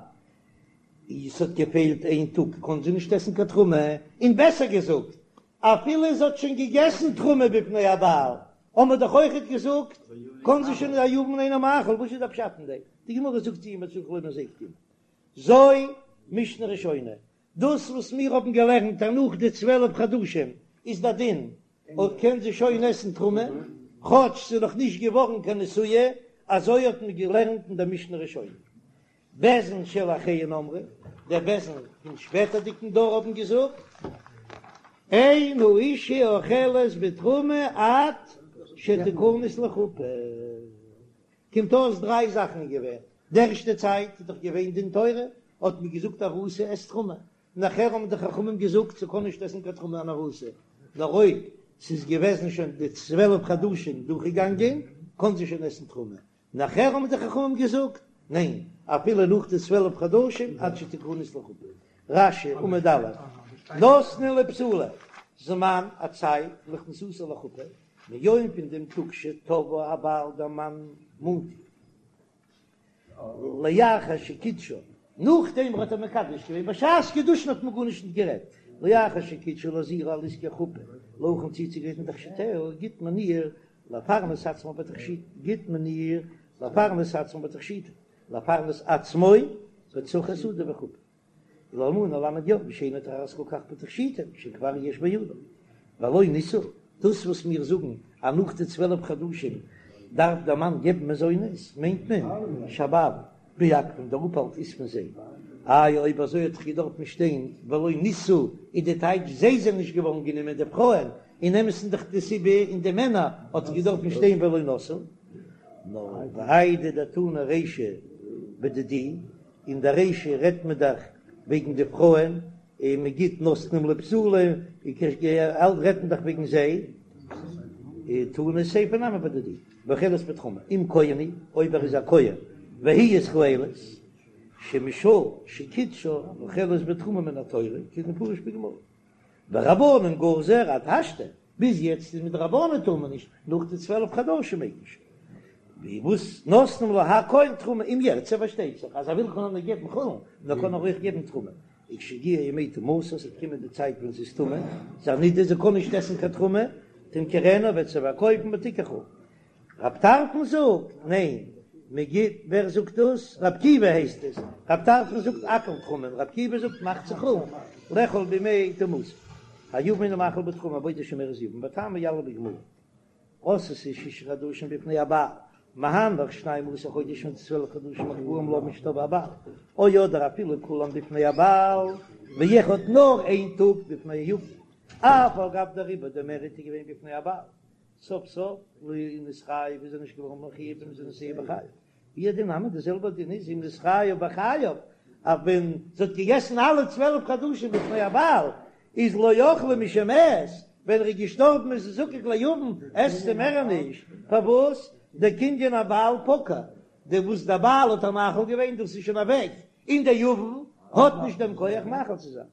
איז ס'האט געפעלט איין טאג קען זי נישט עסן קיין תרומה, און בעסער געזאגט אפילו זי האט שוין געגעסן תרומה בפני הבעל האבן מיר דאך אויכעט געזאגט קען זי שוין היבם אינו מאכיל, וואס איז דער פשט אין דעם? די גמרא זאגט אימא צריך לומר זו קתני. זו משנה ראשונה, דאס וואס מיר האבן געלערנט אז נאך די 12 חדשים איז דער דין אויב קען זי שוין עסן תרומה, כאטש ס'איז נאך נישט געווארן קיין נשואה, אזוי האט מען געלערנט אין דער משנה ראשונה. בית דין של אחריהן אמרו, דער בית דין פון שפעטערדיגן דור האבן געזאגט, אין האשה אוכלת בתרומה עד שתכנס לחופה. קומט אויס דריי זאכן איז געווען, די ערשטע צייט איז דאך געווען דין תורה, האט מען געזאגט ארוסה עסט תרומה, נאכער האבן די חכמים געזאגט ס'קען נישט עסן קיין תרומה אן ארוסה, נאר אויב ס'איז געוועזן שוין די 12 חדשים דורכגעגאנגען קען זי שוין עסן תרומה, נאכער האבן די חכמים געזאגט ניין אפילו נאך די 12 חדשים עד שתכנס לחופה. רש"י עמוד א', נותנין לבתולה, זמן א צייט לכניסתה לחופה, מיום פון דעם טאג שתבעה הבעל דער מאן מאנט איר לאחר שקידשה, נאכדעם האט ער מקדש געווען, בשעת קידושין האט מען גארנישט נישט גערעדט, לאחר שקידשה להזהירה על עסקי חופה, להכין צוצוגרייטן תכשיטיה, גיט מען איר לפרנס עצמה בתכשיט, גיט מען איר לפרנס עצמה בתכשיטים, לפרנס עצמו בצרכי סעודה וחופה. ולאלמנה למד יום שאינה טורחת כל כך בתכשיטים שכבר יש בידה ולא נישאו, דאס וואס מיר זאגן אז נאך די 12 חדשים דארף דער מאן געבן מזונות מיינט מען שהבעלים מעכבין דער אפהאלט איז פון זיי, איי אויב אזוי האט דאך געדארפט שטיין ולא נישאו איז די טייטש זיי זענען נישט געווארן גענומען די פרויען, אין אמת'ן דאך די סיבה אין די מענער האט געדארפט שטיין ולא נשאו, נאר ואיידי דתנא רישא בדידהו אין די רישא רעדט מען דאך וועגן די פרויען, און מען גיט נותנין לבתולה, רעדט מען דאך וועגן זיי, תנא סיפא נמי בדידהו, ואוכלת בתרומה, אם כהן הוא, אויב ער איז א כהן, והיא ישראלית, שמשעה שקידשה אוכלת בתרומה מן התורה, כדמפרש בגמרא. ורבנן גזור עד השתא, ביז יעצט איז מדרבנן טאר מען נישט, נאך די 12 חדשים מעג מען שוין. ווי וואס נותנים לה הכל תרומה אם ירצה פארשטייט זיך אז ער וויל קען ער געבן חולין, נאר קען ער אויך געבן תרומה. וכשיגיעו ימי טומאתה, עס וועט קומען די צייט ווען זי איז טמא, זי איז א נידה, זי קען נישט עסן קיין תרומה, תמכרנה וועט זי פארקויפן ותיקח חולין. רב טרפון זאגט, ניין, מען גיט, ווער זאגט דאס? רב עקיבא הייסט עס, רב טרפון זאגט הכל תרומה, רב עקיבא זאגט מחצה חולין, לאכול בימי טומאתה. היבם אינו מאכיל בתרומה בעודה שומרת יבם, וטעמא יליף בגמרא. עשתה שישה חדשים בפני הבעל, מהנך שנים עשר חודש פון צוועלף חדשים הקבועים לה משתבעה הבעל, או אדער אפילו כולם בפני הבעל, ואחד נאר איין טאג בפני היבם, אף על גב דריבה דער מער איז געווען בפני הבעל, סוף סוף לא נתחייב איז ער נישט געווארן מחויב במזונותיה בחייו, והוא הדין נמי די זעלבע דין איז אם נתחייב בחייו, אז ווען זי האט געגעסן אלע 12 חדשים בפני הבעל איז לא אכלה משמת, ווען ער איז געשטארבן איז זי זקוק ליבם, עסט זי מער נישט, פארוואס? דקנין הבעל פקע, די וואס דער בעל האט איר מאכיל געווען דאס איז שוין אוועק, און דער יבם האט נישט דעם כח מאכיל צו זיין.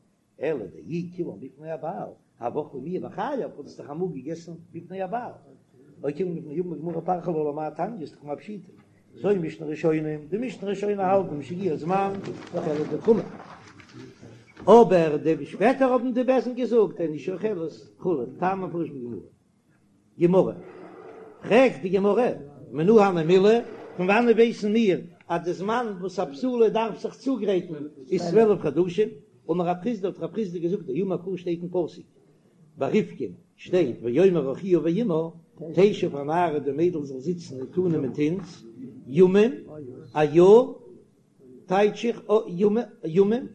אלא דאי כולן בפני הבעל, הוה אכלה מיהא בחייו, האט עס דאך אמאל געגעסן בפני הבעל. או כולן בפני היבם בגמרא פריך לה למאי תניא איז דאך מה פשיטא. זו משנה ראשונה, די משנה ראשונה האלט משהגיע הזמן אוכלת בתרומה. אבער די שפעטער האבן די בית דין געזאגט אין אשה אוכלת חולין, טעם המפורש בגמרא. גמרא, פרעגט די גמרא, מנא הני מילי, פון וואנעט ווייסן מיר אז די זמן וואס א בתולה דארף זיך צוגרייטן איז 12 חדשים? אמר רב חסדא האט רב חסדא געזאגט דאמר קרא שטייט אין פסוק ביי רבקה שטייט ויאמר אחיה ואמה תשב הנערה די מיידל זאל זיצן אתנו מיט אונז ימים. א יאר טייטש איך ימים,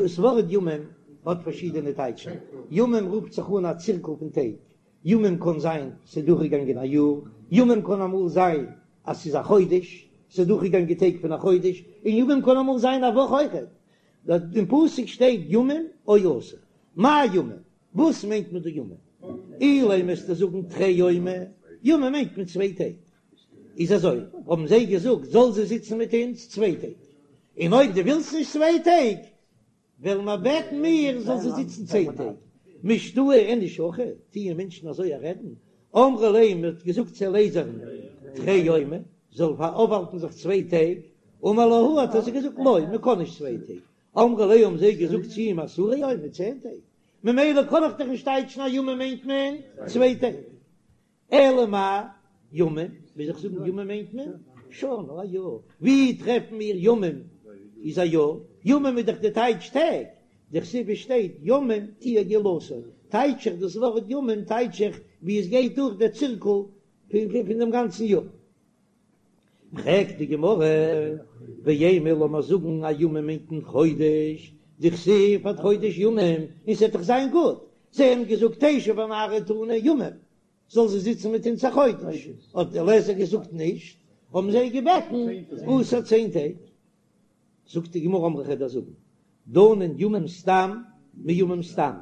ס'ווארט ימים האט פארשידענע טייטשן, ימים רופט זיך אן א צירקל פון טעג, ימים קען זיין ס'איז דורכגעגאנגען א יאר, ימים קען אמאל זיין אז ס'איז א חודש, ס'איז דורכגעגאנגען טעג פון א חודש, און ימים קען אמאל זיין א וואך אויכעט, אין פסוק שטייט ימים או עשר, מאי ימים? וואס מיינט מען דא ימים? אילימא וועסטו זאגן תרי יומי, ימים מיינט מען צוויי טעג, איז אזוי האבן זיי געזאגט זאל זי זיצן מיט אונז צוויי טעג, און אויב דו ווילסט נישט צוויי טעג וועלן מיר בעטן מיר זאל זי זיצן צען טעג, משתעי איניש הכי, טוען מענטשן אזוי א רעדן, אמרו ליה מען האט געזאגט צו אליעזר'ן תרי יומי זאל אויפהאלטן זיך צוויי טעג, אמר להו האט ער זיי געזאגט לא מען קען נישט צוויי טעג, אמרו ליה האבן זיי געזאגט צו אים עשרה יומי צען טעג, ממילא קען איך דאך נישט טייטשן אז ימים מיינט מען צוויי טעג, אלא מאי ימים, מוז איך זאגן ימים מיינט מען שנה א יאר, ווי טרעפן מיר ימים איז א יאר, ימים איז דאך די טייטש טעג, דכתיב עס שטייט ימים תהיה גאולתו, טייטש איך דאס ווארט ימים טייטש איך ווי עס גייט דורך דער צירקל פון דעם גאנצן יאר. פרעגט די גמרא, ואימא לאמיר זאגן אז ימים מיינט מען חודש, דכתיב עד חודש ימים, און ס'וועט דאך זיין גוט, זיי האבן געזאגט תשב הנערה אתנו ימים, זאל זי זיצן מיט אונז א חודש, האט אליעזר געזאגט נישט, האבן זיי געבעטן עשר צען טעג, זאגט די גמרא אמרי כ'וועל דיר זאגן, דנין ימים סתם מימים סתם,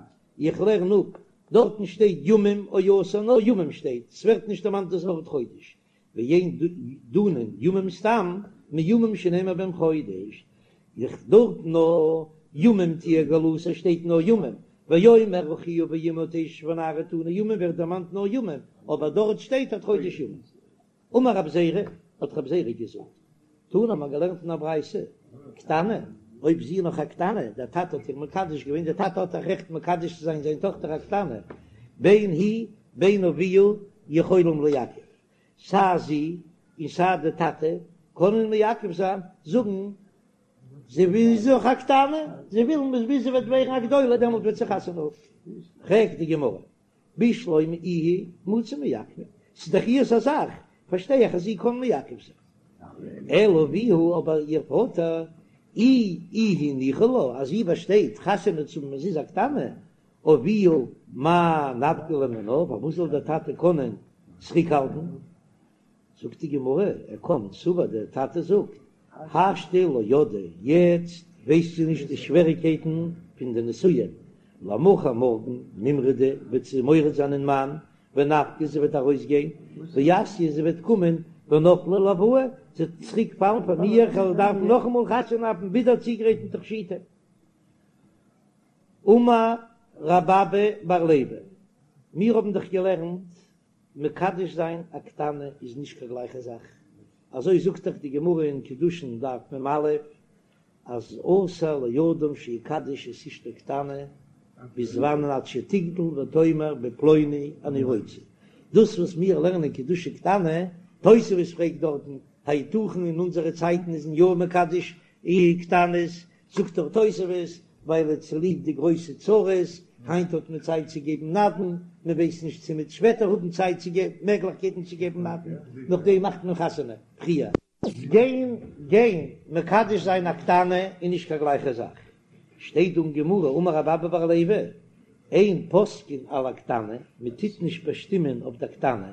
איך לערן אפ, דארטן שטייט ימים או עשר נאר ימים שטייט, ס'ווערט נישט דערמאנט דאס ווארט חודש, ואין דנין ימים סתם מימים שנאמר בהם חודש, איך דארט נאר ימים תהיה גאולתו שטייט נאר ימים, ויאמר אחיה ואמה תשב הנערה אתנו ימים ווערט דערמאנט נאר ימים, אבער דארט שטייט עד חודש ימים. אמר רב זירא, האט רב זירא געזאגט, תנא האט מען געלערנט אין א ברייתא, קטנה, אויב זי איז נאך א קטנה, דער טאטע האט איר מקדש געווען, דער טאטע האט א רעכט מקדש צו זיין זיין טאכטער א קטנה, בין היא בין אביה יכולים לעכב, סיי זי און סיי די טאטע קענען מעכב זיין, זאגן זי איז נאך א קטנה, זיי ווילן ביז זי וועט ווערן א גדולה דעמאלט וועט זי חתונה האבן. פרעגט די גמרא, בשלמא איהי מציא מעכבא, ס'איז דאך איהר'ס א זאך, פארשטיי איך אז זי קען מעכב זיין. אלא אביה, אבער איר פאטער, אי איהי ניחא לה, אז זי באשטייט חתונה צו האבן ווען זי איז א קטנה, אביה מאי נפקא ליה מינה, פארוואס זאל דער טאטע קענען צוריקהאלטן? זאגט די גמרא, ער קען, סבר דער טאטע זאגט, השתא לא ידעה, יעצט ווייסט זי נישט די שוועריקייטן פון די נישואין, למחר מארגן מימרדה וועט זי מורד זיין אין מאן, ונפקא זי וועט ארויסגיין, ואתיא זי וועט קומען, ונפלה עילואי, זי וועט צוריק פאלן פאר מיר, איך וועל דארפן נאכאמאל חתונה האבן ווידער צוגרייטן תכשיטים. אמר רב אבא בר לוי, מיר האבן דאך געלערנט מקדש זיין א קטנה איז נישט קיין גלייכע זאך, אזוי זאגט דאך די גמרא אין קידושין דף מ"א, אז אסור לאדם שיקדש את אשתו קטנה ביז וואנען עד שתגדל ותאמר בפלוני אני רוצה, דאס וואס מיר לערנען קידושי קטנה, תוספות פרעגט דארטן היתכן אין אונזערע צייטן איז מען יא מקדש קטנות, זאגט דאך תוספות, ווייל צוליב די גרויסע צרות, היינט האט מען צייט צו געבן נדן, מען ווייסט נישט צו מ'וועט שפעטער האבן צייט צו געבן, מעגליכקייטן צו געבן נדן, נאכדעם מאכט מען חתונה פריער. גיין גיין מקדש זיין א קטנה איז נישט קיין גלייכע זאך, שטייט דא אין גמרא אמר רב אבא בר לוי, אין פוסקין על הקטנה, מען טוט נישט באשטימען אויף דער קטנה,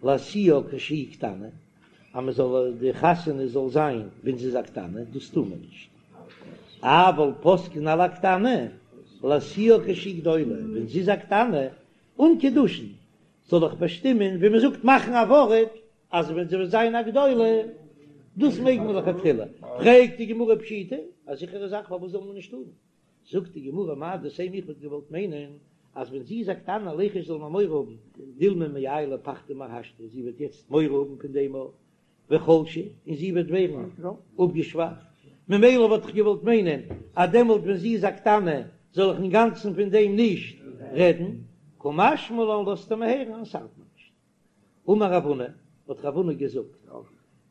להשיאה כשהיא קטנה, אז מען זאל די חתונה זאל זיין ווען זי איז א קטנה, דאס טאר מען נישט, אבל פוסקין על הקטנה להשיאה כשהיא גדולה, ווען זי איז א קטנה אן קידושין זאל איך באשטימען ווי מען זאגט מאכן א ווארט אז ווען זי וועט זיין א גדולה, דאס מעג מען לכתחילה, פרעגט די גמרא פשיטא, א זיכערע זאך פארוואס זאל מען נישט טארן? זאגט די גמרא מהו דתימא איך וואלט געוואלט מיינען אז ווען זי איז א קטנה ליחוש זאל מען מורא האבן דילמא מעיילא פחדא מהשתא זי וועט יעצט מורא האבן פון דעם וחלשה און זי וועט ווערן אפגעשוואכט ממילא וואלט איך געוואלט מיינען אז דעמאלט ווען זי איז א קטנה זאל איך אינגאנצן פון דעם נישט רעדן קא משמע לן לאזט ער מיר הערן אז ס'ארט מיר נישט. אמר רב הונא, האט רב הונא געזאגט,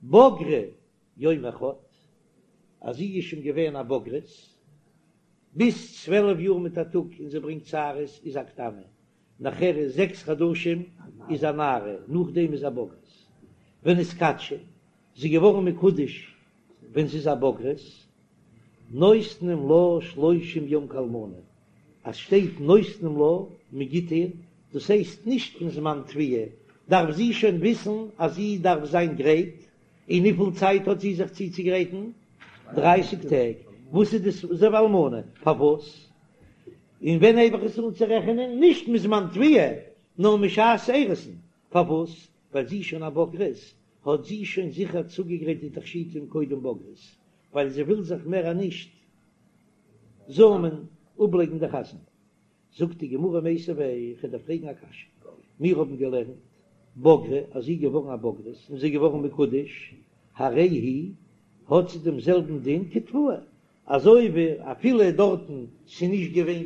בגרה יום אחד, אז זי איז שוין געווען א בוגרת, ביז 12 יאר מיט א טאג און זי ברענגט שערות איז א קטנה, נאכער איז זעקס חדשים איז א נערה, נאכדעם איז א בוגרת. ונתקדשה, זי איז געווארן מקודש. ווען זי איז א בוגרת, נותנים לה שלושים יום כאלמנה, אז שטייט נותנים לה, מען גיט איר, דאס הייסט נישט פון זמן תביעה, דארף זי שוין וויסן אז זי דארף זיין גרייט, און וויפיל צייט האט זי זיך צוצוגרייטן? דרייסיג טעג, וואס איז דאס אזוי ווי אלמנה? פארוואס? און ווען הייב איך עס אן צו רעכענען? נישט מזמן תביעה, נאר משעת אירוסין, פארוואס? ווייל זי איז שוין א בוגרת, האט זי שוין זיכער צוגעגרייט די תכשיטים קודם בגרות, ווייל זי וויל זיך מער נישט זאמען אפלייגן די חתונה. זאגט די גמרא מיתיבי, איך וועל דיר פרעגן א קשיא, מיר האבן געלערנט בגרה אז זי איז געווארן א בוגרת און זי איז געווארן מקודש, הרי היא, האט זי דעם זעלבן דין כתבועה, אזוי ווי אפילו דארטן ס'איז נישט געווען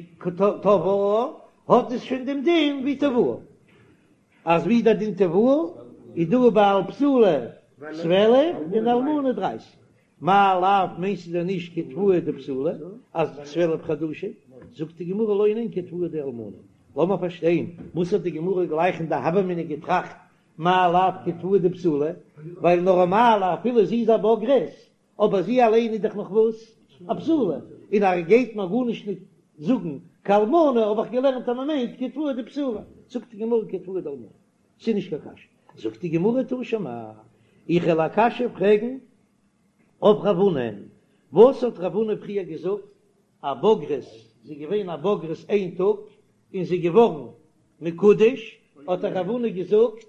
תבעה, האט עס שוין דעם דין ווי תבועה, אז ווי דער דין תבועה איז דא ביי א בתולה 12 און אלמנה 30, מאי לאו מיינסטו דען נישט כתבועה דבתולה אז 12 חדשים, זאגט די גמרא לא ניין כתבועה דאלמנה, לאמיר פארשטיין וואס האט די גמרא גלייך אין די הוה אמינא געטראכט מאי לאו כתבועה דבתולה, ווייל נארמאל אפילו זי איז א בוגרת אבער זי אליין איז דאך נאך וואס? א בתולה, און ער גייט מיר גארנישט נישט זאגן כאלמנה, האב איך געלערנט אז מען מיינט כתבועה דבתולה, זאגט די גמרא כתבועה דאלמנה, ס'איז נישט קיין קשיא, זאגט די גמרא תא שמע, איך וועל א קשיא פרעגן אויף רב הונא, וואס האט רב הונא פריער געזאגט א בוגרת, זי איז געווען א בוגרת איין טאג און זי איז געווארן מקודש, האט רב הונא געזאגט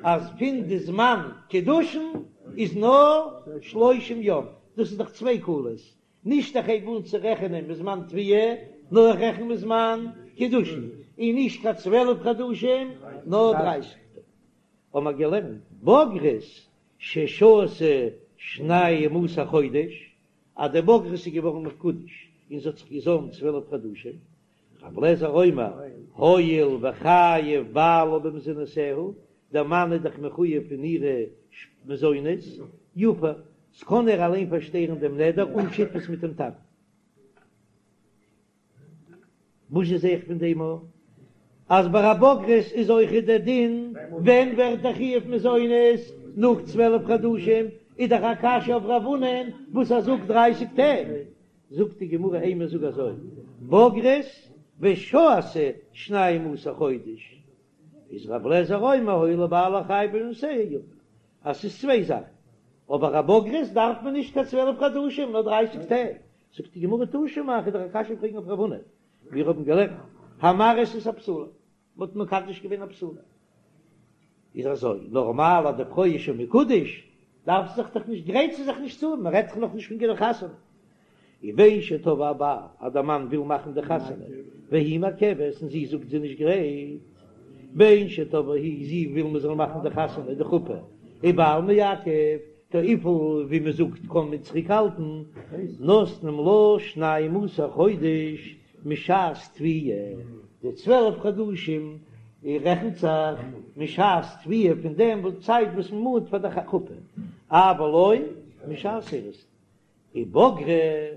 אז פון די זמן קידושין איז נאר שלושים יום, דאס איז דאך צוויי קולות, נישט איך הייב אן צו רעכענען מזמן תביעה, נאר איך רעכן מזמן קידושין, און נישט קיין צוועלף חדשים נאר דרייסיג טאג. האבן מיר געלערנט בוגרת ששהתה שנים עשר חודש, אז די בוגרת איז געווארן מקודש און זי האט זיך געזוימט צוועלף חדשים, רבי אליעזר אומר, הואיל וחייב בעלה במזונותיה, דער מאן איז דאך מחויב פון אירע מזונות, יפר, ס'קען ער אליין פארשטערן דעם נדר אן שותפות מיט דעם טאטן. וואס זע איך פון דעם א? אז ביי א בוגרת איז אויך דער דין, ווען ווערט דער חיוב מזונות? נאך 12 חדשים, איז דאך א קשיא אויף רב הונא'ן וואס ער זאגט דרייסיג טעג. זאגט די גמרא אימא זאג אזוי, בוגרת ושהתה שנים עשר חודש, איז רב לעזער אומר הואיל ובעלה חייב במזונותיה יפר, אז ס'איז צוויי זאכן, אבער א בוגרת דארף מען נישט קיין צוועלף חדשים נאר דרייסיג טעג, זאגט די גמרא תא שמע, איך וועל דיר א קשיא פרעגן אויף רב הונא, מיר האבן געלערנט המארס את הבתולה, מ'האט מקדש געווען א בתולה, איז אזוי, נארמאל אז די פרוי איז שוין מקודש, דארף זי זיך דאך נישט, גרייט זי זיך נישט צו, מען רעדט דאך נאכנישט פון קיין חתונה. ובין שתבעה הבעל, אז דער מאן וויל מאכן די חתונה, והיא מעכבת, און זי זאגט זי איז נישט גרייט, בין שתבעה היא, זי וויל מען זאל מאכן די חתונה, די חופה, ובעל מעכב, טא וויפיל ווי מען זאגט קען מען צוריק האלטן, נותנים לה שנים עשר חודש משעת תביעה, די צוועלף חדשים רעכנט זיך משעת תביעה פון דעם צייט וואס מען מאנט פאר די חופה, אבל לא משעת אירוסין, ובגרה,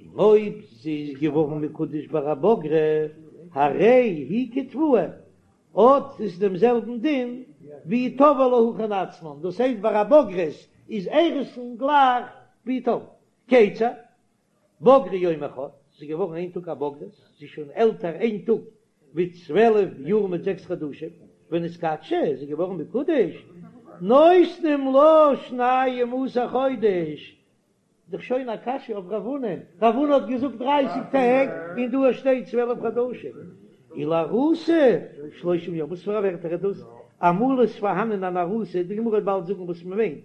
און אויב זי איז געווארן מקודש ביי א בגרה, הרי היא כתבועה, האט עס דעם זעלבן דין ווי תבעו להכין עצמן, דאס הייסט ביי א בוגרת איז אירוסין גלייך ווי תבעו. כיצד? בגרה יום אחד, זי איז געווארן איין טאג א בוגרת, זי איז שוין עלטער איין טאג ווי צוועלף יאר מיט זעקס חדשים, ונתקדשה, זי איז געווארן מקודש, נותנים לה שנים עשר חודש, דאך שוין א קשיא אויף רב הונא, רב הונא האט געזאגט דרייסיג טעג און דא שטייט צוועלף חדשים, ולארוסה שלושים יום, וואס פאר א ווערטער איז דאס? אמאל איז פארהאנען אן ארוסה, די גמרא וועט באלד זאגן וואס מען מיינט,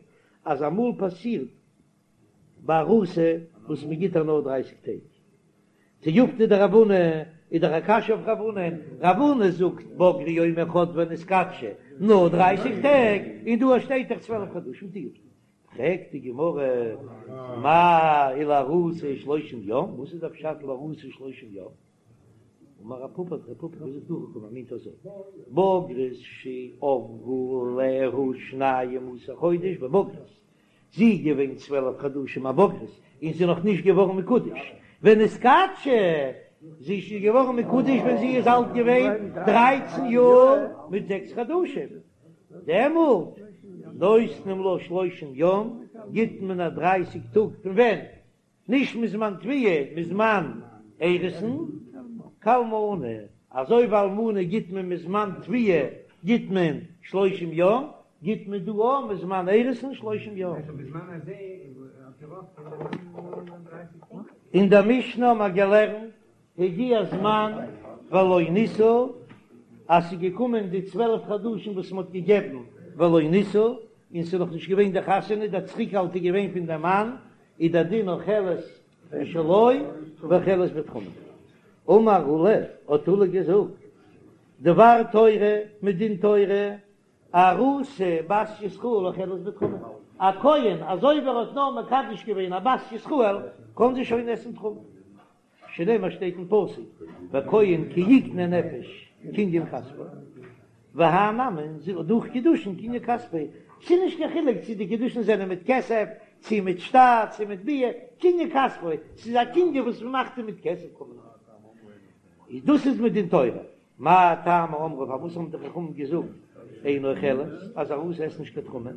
אז אמאל פאסירט ביי ארוסה וואס מען גיט איר נאר דרייסיג טעג. תיובתא דרב הונא איז דאך א קשיא אויף רב הונא, רב הונא זאגט בגרה יום אחד ונתקדשה נאר דרייסיג טעג, און דא שטייט דאך צוועלף חדשים תיובתא. פרעגט די גמרא מאי ולארוסה שלושים יום, וואס איז די פשט לארוסה שלושים יום? אמר רב פפא האט רב פפא געזאגט הכי קאמר מיינט אזוי, בוגרת שעברו עליה שנים עשר חודש בבגרות, זי איז געווען צוועלף חדשים א בוגרת און זי איז נאך נישט געווארן מקודש ונתקדשה, זי איז שוין געווארן מקודש ווען זי איז אלט געווען דרייצן יאר מיט זעקס חדשים, דעמאלט נותנים לה שלושים יום. גיט מען איר דרייסיג טאג פון ווען? נישט מזמן תביעה, מזמן אירוסין כאלמנה, אזוי ווי אלמנה גיט מען מזמן תביעה גיט מען שלושים יום, גיט מען דא אויך מזמן אירוסין שלושים יום. אין דער משנה האבן מיר געלערנט הגיע זמן ולא נישאו, אז ס'איז געקומען די 12 חדשים וואס מ'האט געגעבן ולא נישאו, און ס'איז נאך נישט געווען די חתונה, דער צוריקהאלט איז געווען פון דעם מאן, איז דער דין אוכלת משלו ואוכלת בתרומה. אמר עולא, האט עולא געזאגט, דבר תורה מדין תורה, ארוסה בת ישראל אוכלת בתרומה, א כהן אזוי ווי ער האט נאר מקדש געווען א בת ישראל קען זי שוין עסן תרומה, שנאמר שטייט אין פסוק וכהן כי יקנה נפש קנין כספו, והאי נמי דורך קידושין קנין כספו, ס'איז נישט קיין חילוק צו די קידושין זענען מיט כסף צו מיט שטר צו מיט ביאה, קנין כספו, ס'איז א קנין וואס מ'מאכט אים מיט כסף קען מען אויך, דאס איז מדין תורה. מאי טעמא אמרו פארוואס האבן די חכמים געזאגט אינה אוכלת אז ארוסה עסט נישט קיין תרומה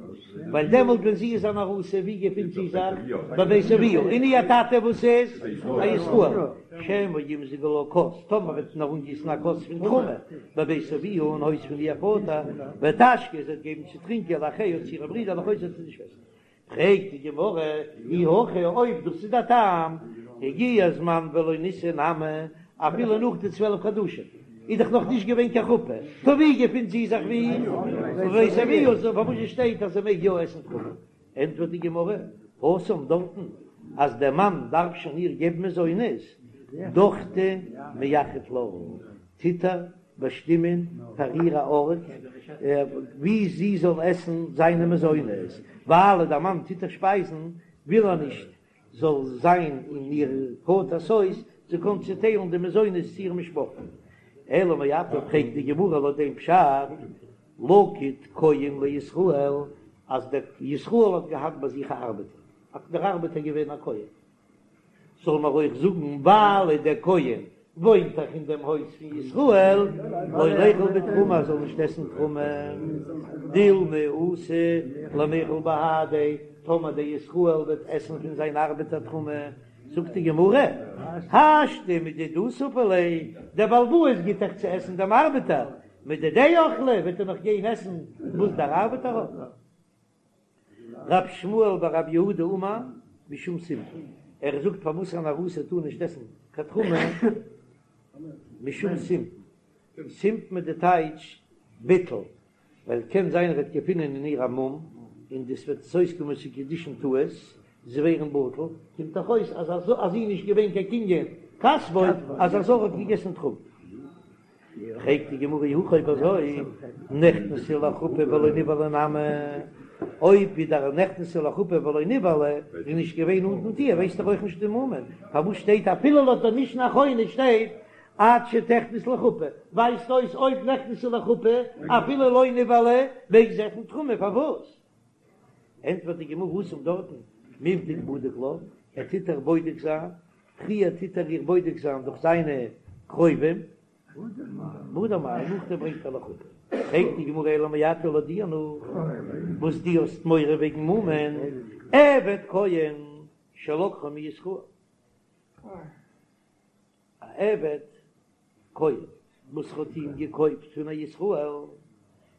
ווייל דעמאלט ווען זי איז אן ארוסה ווי געפינט זי זיך בבית אביה און איר טאטע וואס איז א ישראל שמא ימזגו לה כוס טאמער וועט מען איר אנגיסן א כוס פון תרומה בבית אביה אין הויז פון איר פאטער ותשקה זי וועט געבן צו טרינקען לאחיה צו אירע ברידער ולאחותה צו די שוועסטער פרעגט די גמרא, אי הכי אויב דאס איז דער טעם, הגיע הזמן ולא נישאו נמי, אפילו נאך די 12 חדשים איז דאך נאך נישט געווען קיין חופה, טא ווי געפינט זי זיך ווי? בבית אביה, סאו פארוואס שטייט אז זי מעג יא עסן תרומה? ענטפערט די גמרא, התם דארטן אז דער מאן דארף שוין איר געבן מזונות, דוכתא מייחד לה, טוט ער באשטימען פאר איר א ארט וואו זי זאל עסן זיינע מזונות, ווייל דער מאן טוט איר שפייזן וויל ער נישט זאל זיין אין איר פאטער'ס הויז, זי קען צוטיילן די מזונות צו איר משפחה. אלא מעתה פרעגט די גמרא לויט דעם פשט, לקיט כהן לישראל, אז דער ישראל האט געהאט ביי זיך א ארבעטער, האט דער ארבעטער געווען א כהן, זאל מען אויך זאגן ווייל דער כהן וואוינט דאך אין דעם הויז פון ישראל, לא ליכול בתרומה, ער זאל נישט עסן תרומה, דילמא אתי למיכל בהדיה, טאמער דער ישראל וועט עסן פון זיין ארבעטער תרומה, זאגט די גמרא, השתא מדידהו ספו ליה, דער בעל הבית גיט דאך צו עסן דעם ארבעטער, מדידיה אכלי, וועט ער נאך גיין עסן וואס דער ארבעטער האט. רב שמואל בר רב יהודה אמר משום סימפון, ער זאגט פארוואס אן ארוסה טאר נישט עסן קיין תרומה, משום סימפון, סימפון איז די טייטש ביטול, ווייל קען זיין ער וועט געפינען אין איר א מום, און דאס וועט עס אויסקומען צו קידושין טעות, זיי ווערן בטל, קומט דאך אויס אז אז זי איז נישט געווען קיין קנין כספו, אז א זר האט געגעסן תרומה. פרעגט די גמרא אי הכי אויב אזוי נכנסה לחופה ולא נבעלה נמי, אויב ווי דער נכנסה לחופה ולא נבעלה איז נישט געווען נאנט מיט איר ווייסט ער אויך נישט די מומין, פארוואס שטייט אפילו לויט דער משנה אחרונה שטייט עד שתכנס לחופה, ווייזט אויס אויב נכנסה לחופה אפילו לא נבעלה מעג זי עסן תרומה, פארוואס? ענטפערט די גמרא התם דארטן מיבדק בדיק לה, ער טוט איר בודק זיין, פריער טוט ער איר בודק זיין דורך זיינע קרובים, והדר מעלי, נאכדעם ברענגט ער לחופה. פרעגט די גמרא אלא מעתה לויט דיר נאך וואס דו האסט מורא וועגן מומין, עבד כהן שלקחו מישראל. א עבד כהן וואס האט אים געקויפט פון א ישראל,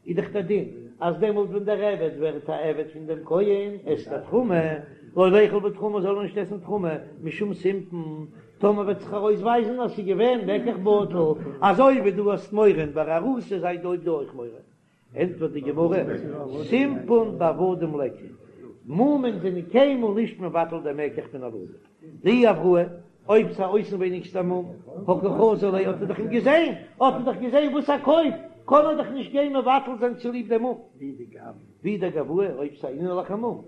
איז דאך דער דין אז דעמאלט ווען דער עבד ווערט א עבד פון דעם כהן עסט ער תרומה, לא ליכול בתרומה זאל ער נישט עסן תרומה משום סימפון, טאמער וועט זיך ארויסווייזן אז ס'איז געווען מקח בטל, אזוי ווי דו האסט מורא ביי ארוסה זיי דא אויך מורא. ענטפערט די גמרא, סימפון בעבדים ליכא, מומין זענען קיינמאל נישט מבטל דעם מקח פון עבדים, דאי אבראי, אויב ס'איז א אויסנווייניגסטע מום, הא קא חזי ליה האט ער דאך אים געזען, האט ער דאך געזען וואס ער קויפט, קען ער דאך נישט גיין מבטל זיין צוליב דעם מום. ואי דגואי, אויב ס'איז א אינערליכע מום,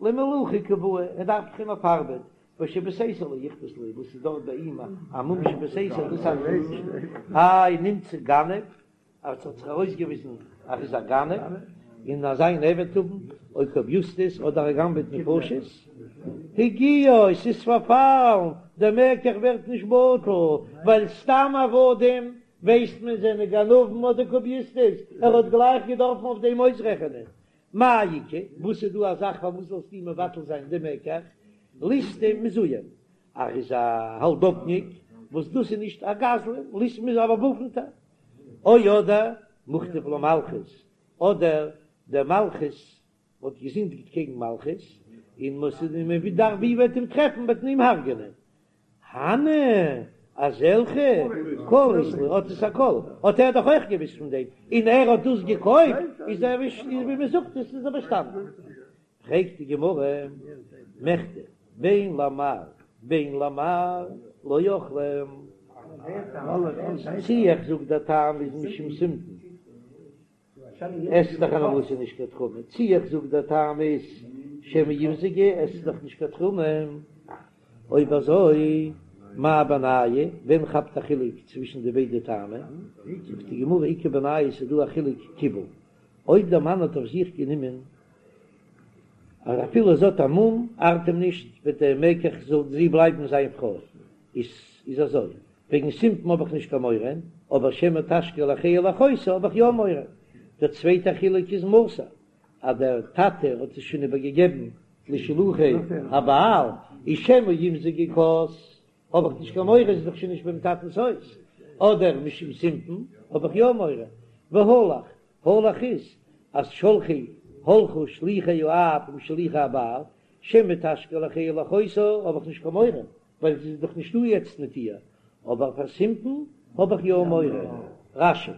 למלאכה קא בעי, ער דארף דאך אים אויף ארבעט, ושבסתר לא איכפת ליה, וואס איז דארט ביי אים א מום שבסתר, דאס ארט אים נישט, איי נמצא גנב, אז ס'האט זיך ארויסגעוויזן אז ער איז א גנב, און אז זיין עבד האבן, או קוביוסטוס אדער ער גנב'עט נפשות, הגיעו, ס'איז פארפאלן, דער מקח ווערט נישט בטל, ווייל סתם עבדים ווייסט מען זענען גנבים אדער קוביוסטוס, ער האט גלייך געדארפן אויף דעם אויסרעכענען. מאי איכא, וואס איז דא א זאך פארוואס זאלסטו מבטל זיין די מקח, ליסטים מזויין, ער איז א האלדאפניק, וואס דאס איז נישט א גזלן, ליסטים איז א באוואפנטער, או אדער מוכתב למלכות, אדער דער מלכות האט געזינדיגט קעגן מלכות, און מ'דארף ווי וועט אים טרעפן וועט מען אים הרג'ענען. הני, אזעלכע, קול אית להו, האט עס א קול, האט ער דאך אויך געוויסט פון דעם, און ער האט דאס געקויפט, איז ער ווי מען זאגט עס איז ער באשטאנען. פרעגט די גמרא, מכדי, בין למר בין למר לא אכלי, צי איך זאג דער טעם איז משום סימפון, עסט דאך אן אבסע נישט קיין תרומה, צי איך זאג דער טעם איז שמא ימזגו, עסט דאך נישט קיין תרומה, אויב אזוי מאי בינייהו, ווען כאפט א חילוק צווישן די ביידע טעמים? זאגט די גמרא איכא בינייהו ס'איז דא א חילוק קיבל, אויב דער מאן האט אויף זיך גענומען אז אפילו זי האט א מום ארט אים נישט וועט דער מקח זאל זי בלייבן זיין פרוי, איז איז אזוי וועגן סימפון האב איך נישט קיין מורא, אבער שמא תשקה לאחיה ולאחותה האב איך יא מורא. דער צווייטער חילוק איז מסר, אז דער טאטע האט עס שוין איבערגעגעבן לשלוחי הבעל, איז שמא ימזגו כוס, האב איך נישט קיין מורא, עס איז דאך שוין נישט ביים טאטנ'ס הויז. אדער משום סימפון האב איך יא מורא. והלך, הלך איז אז שלחי הלכו שליחי האב עם שליחי הבעל, שמא תשקה לאחיה ולאחותה האב איך נישט קיין מורא, ווייל זי איז דאך נישטא יעצט מיט איר, אבער פאר סימפון האב איך יא מורא. רש"י.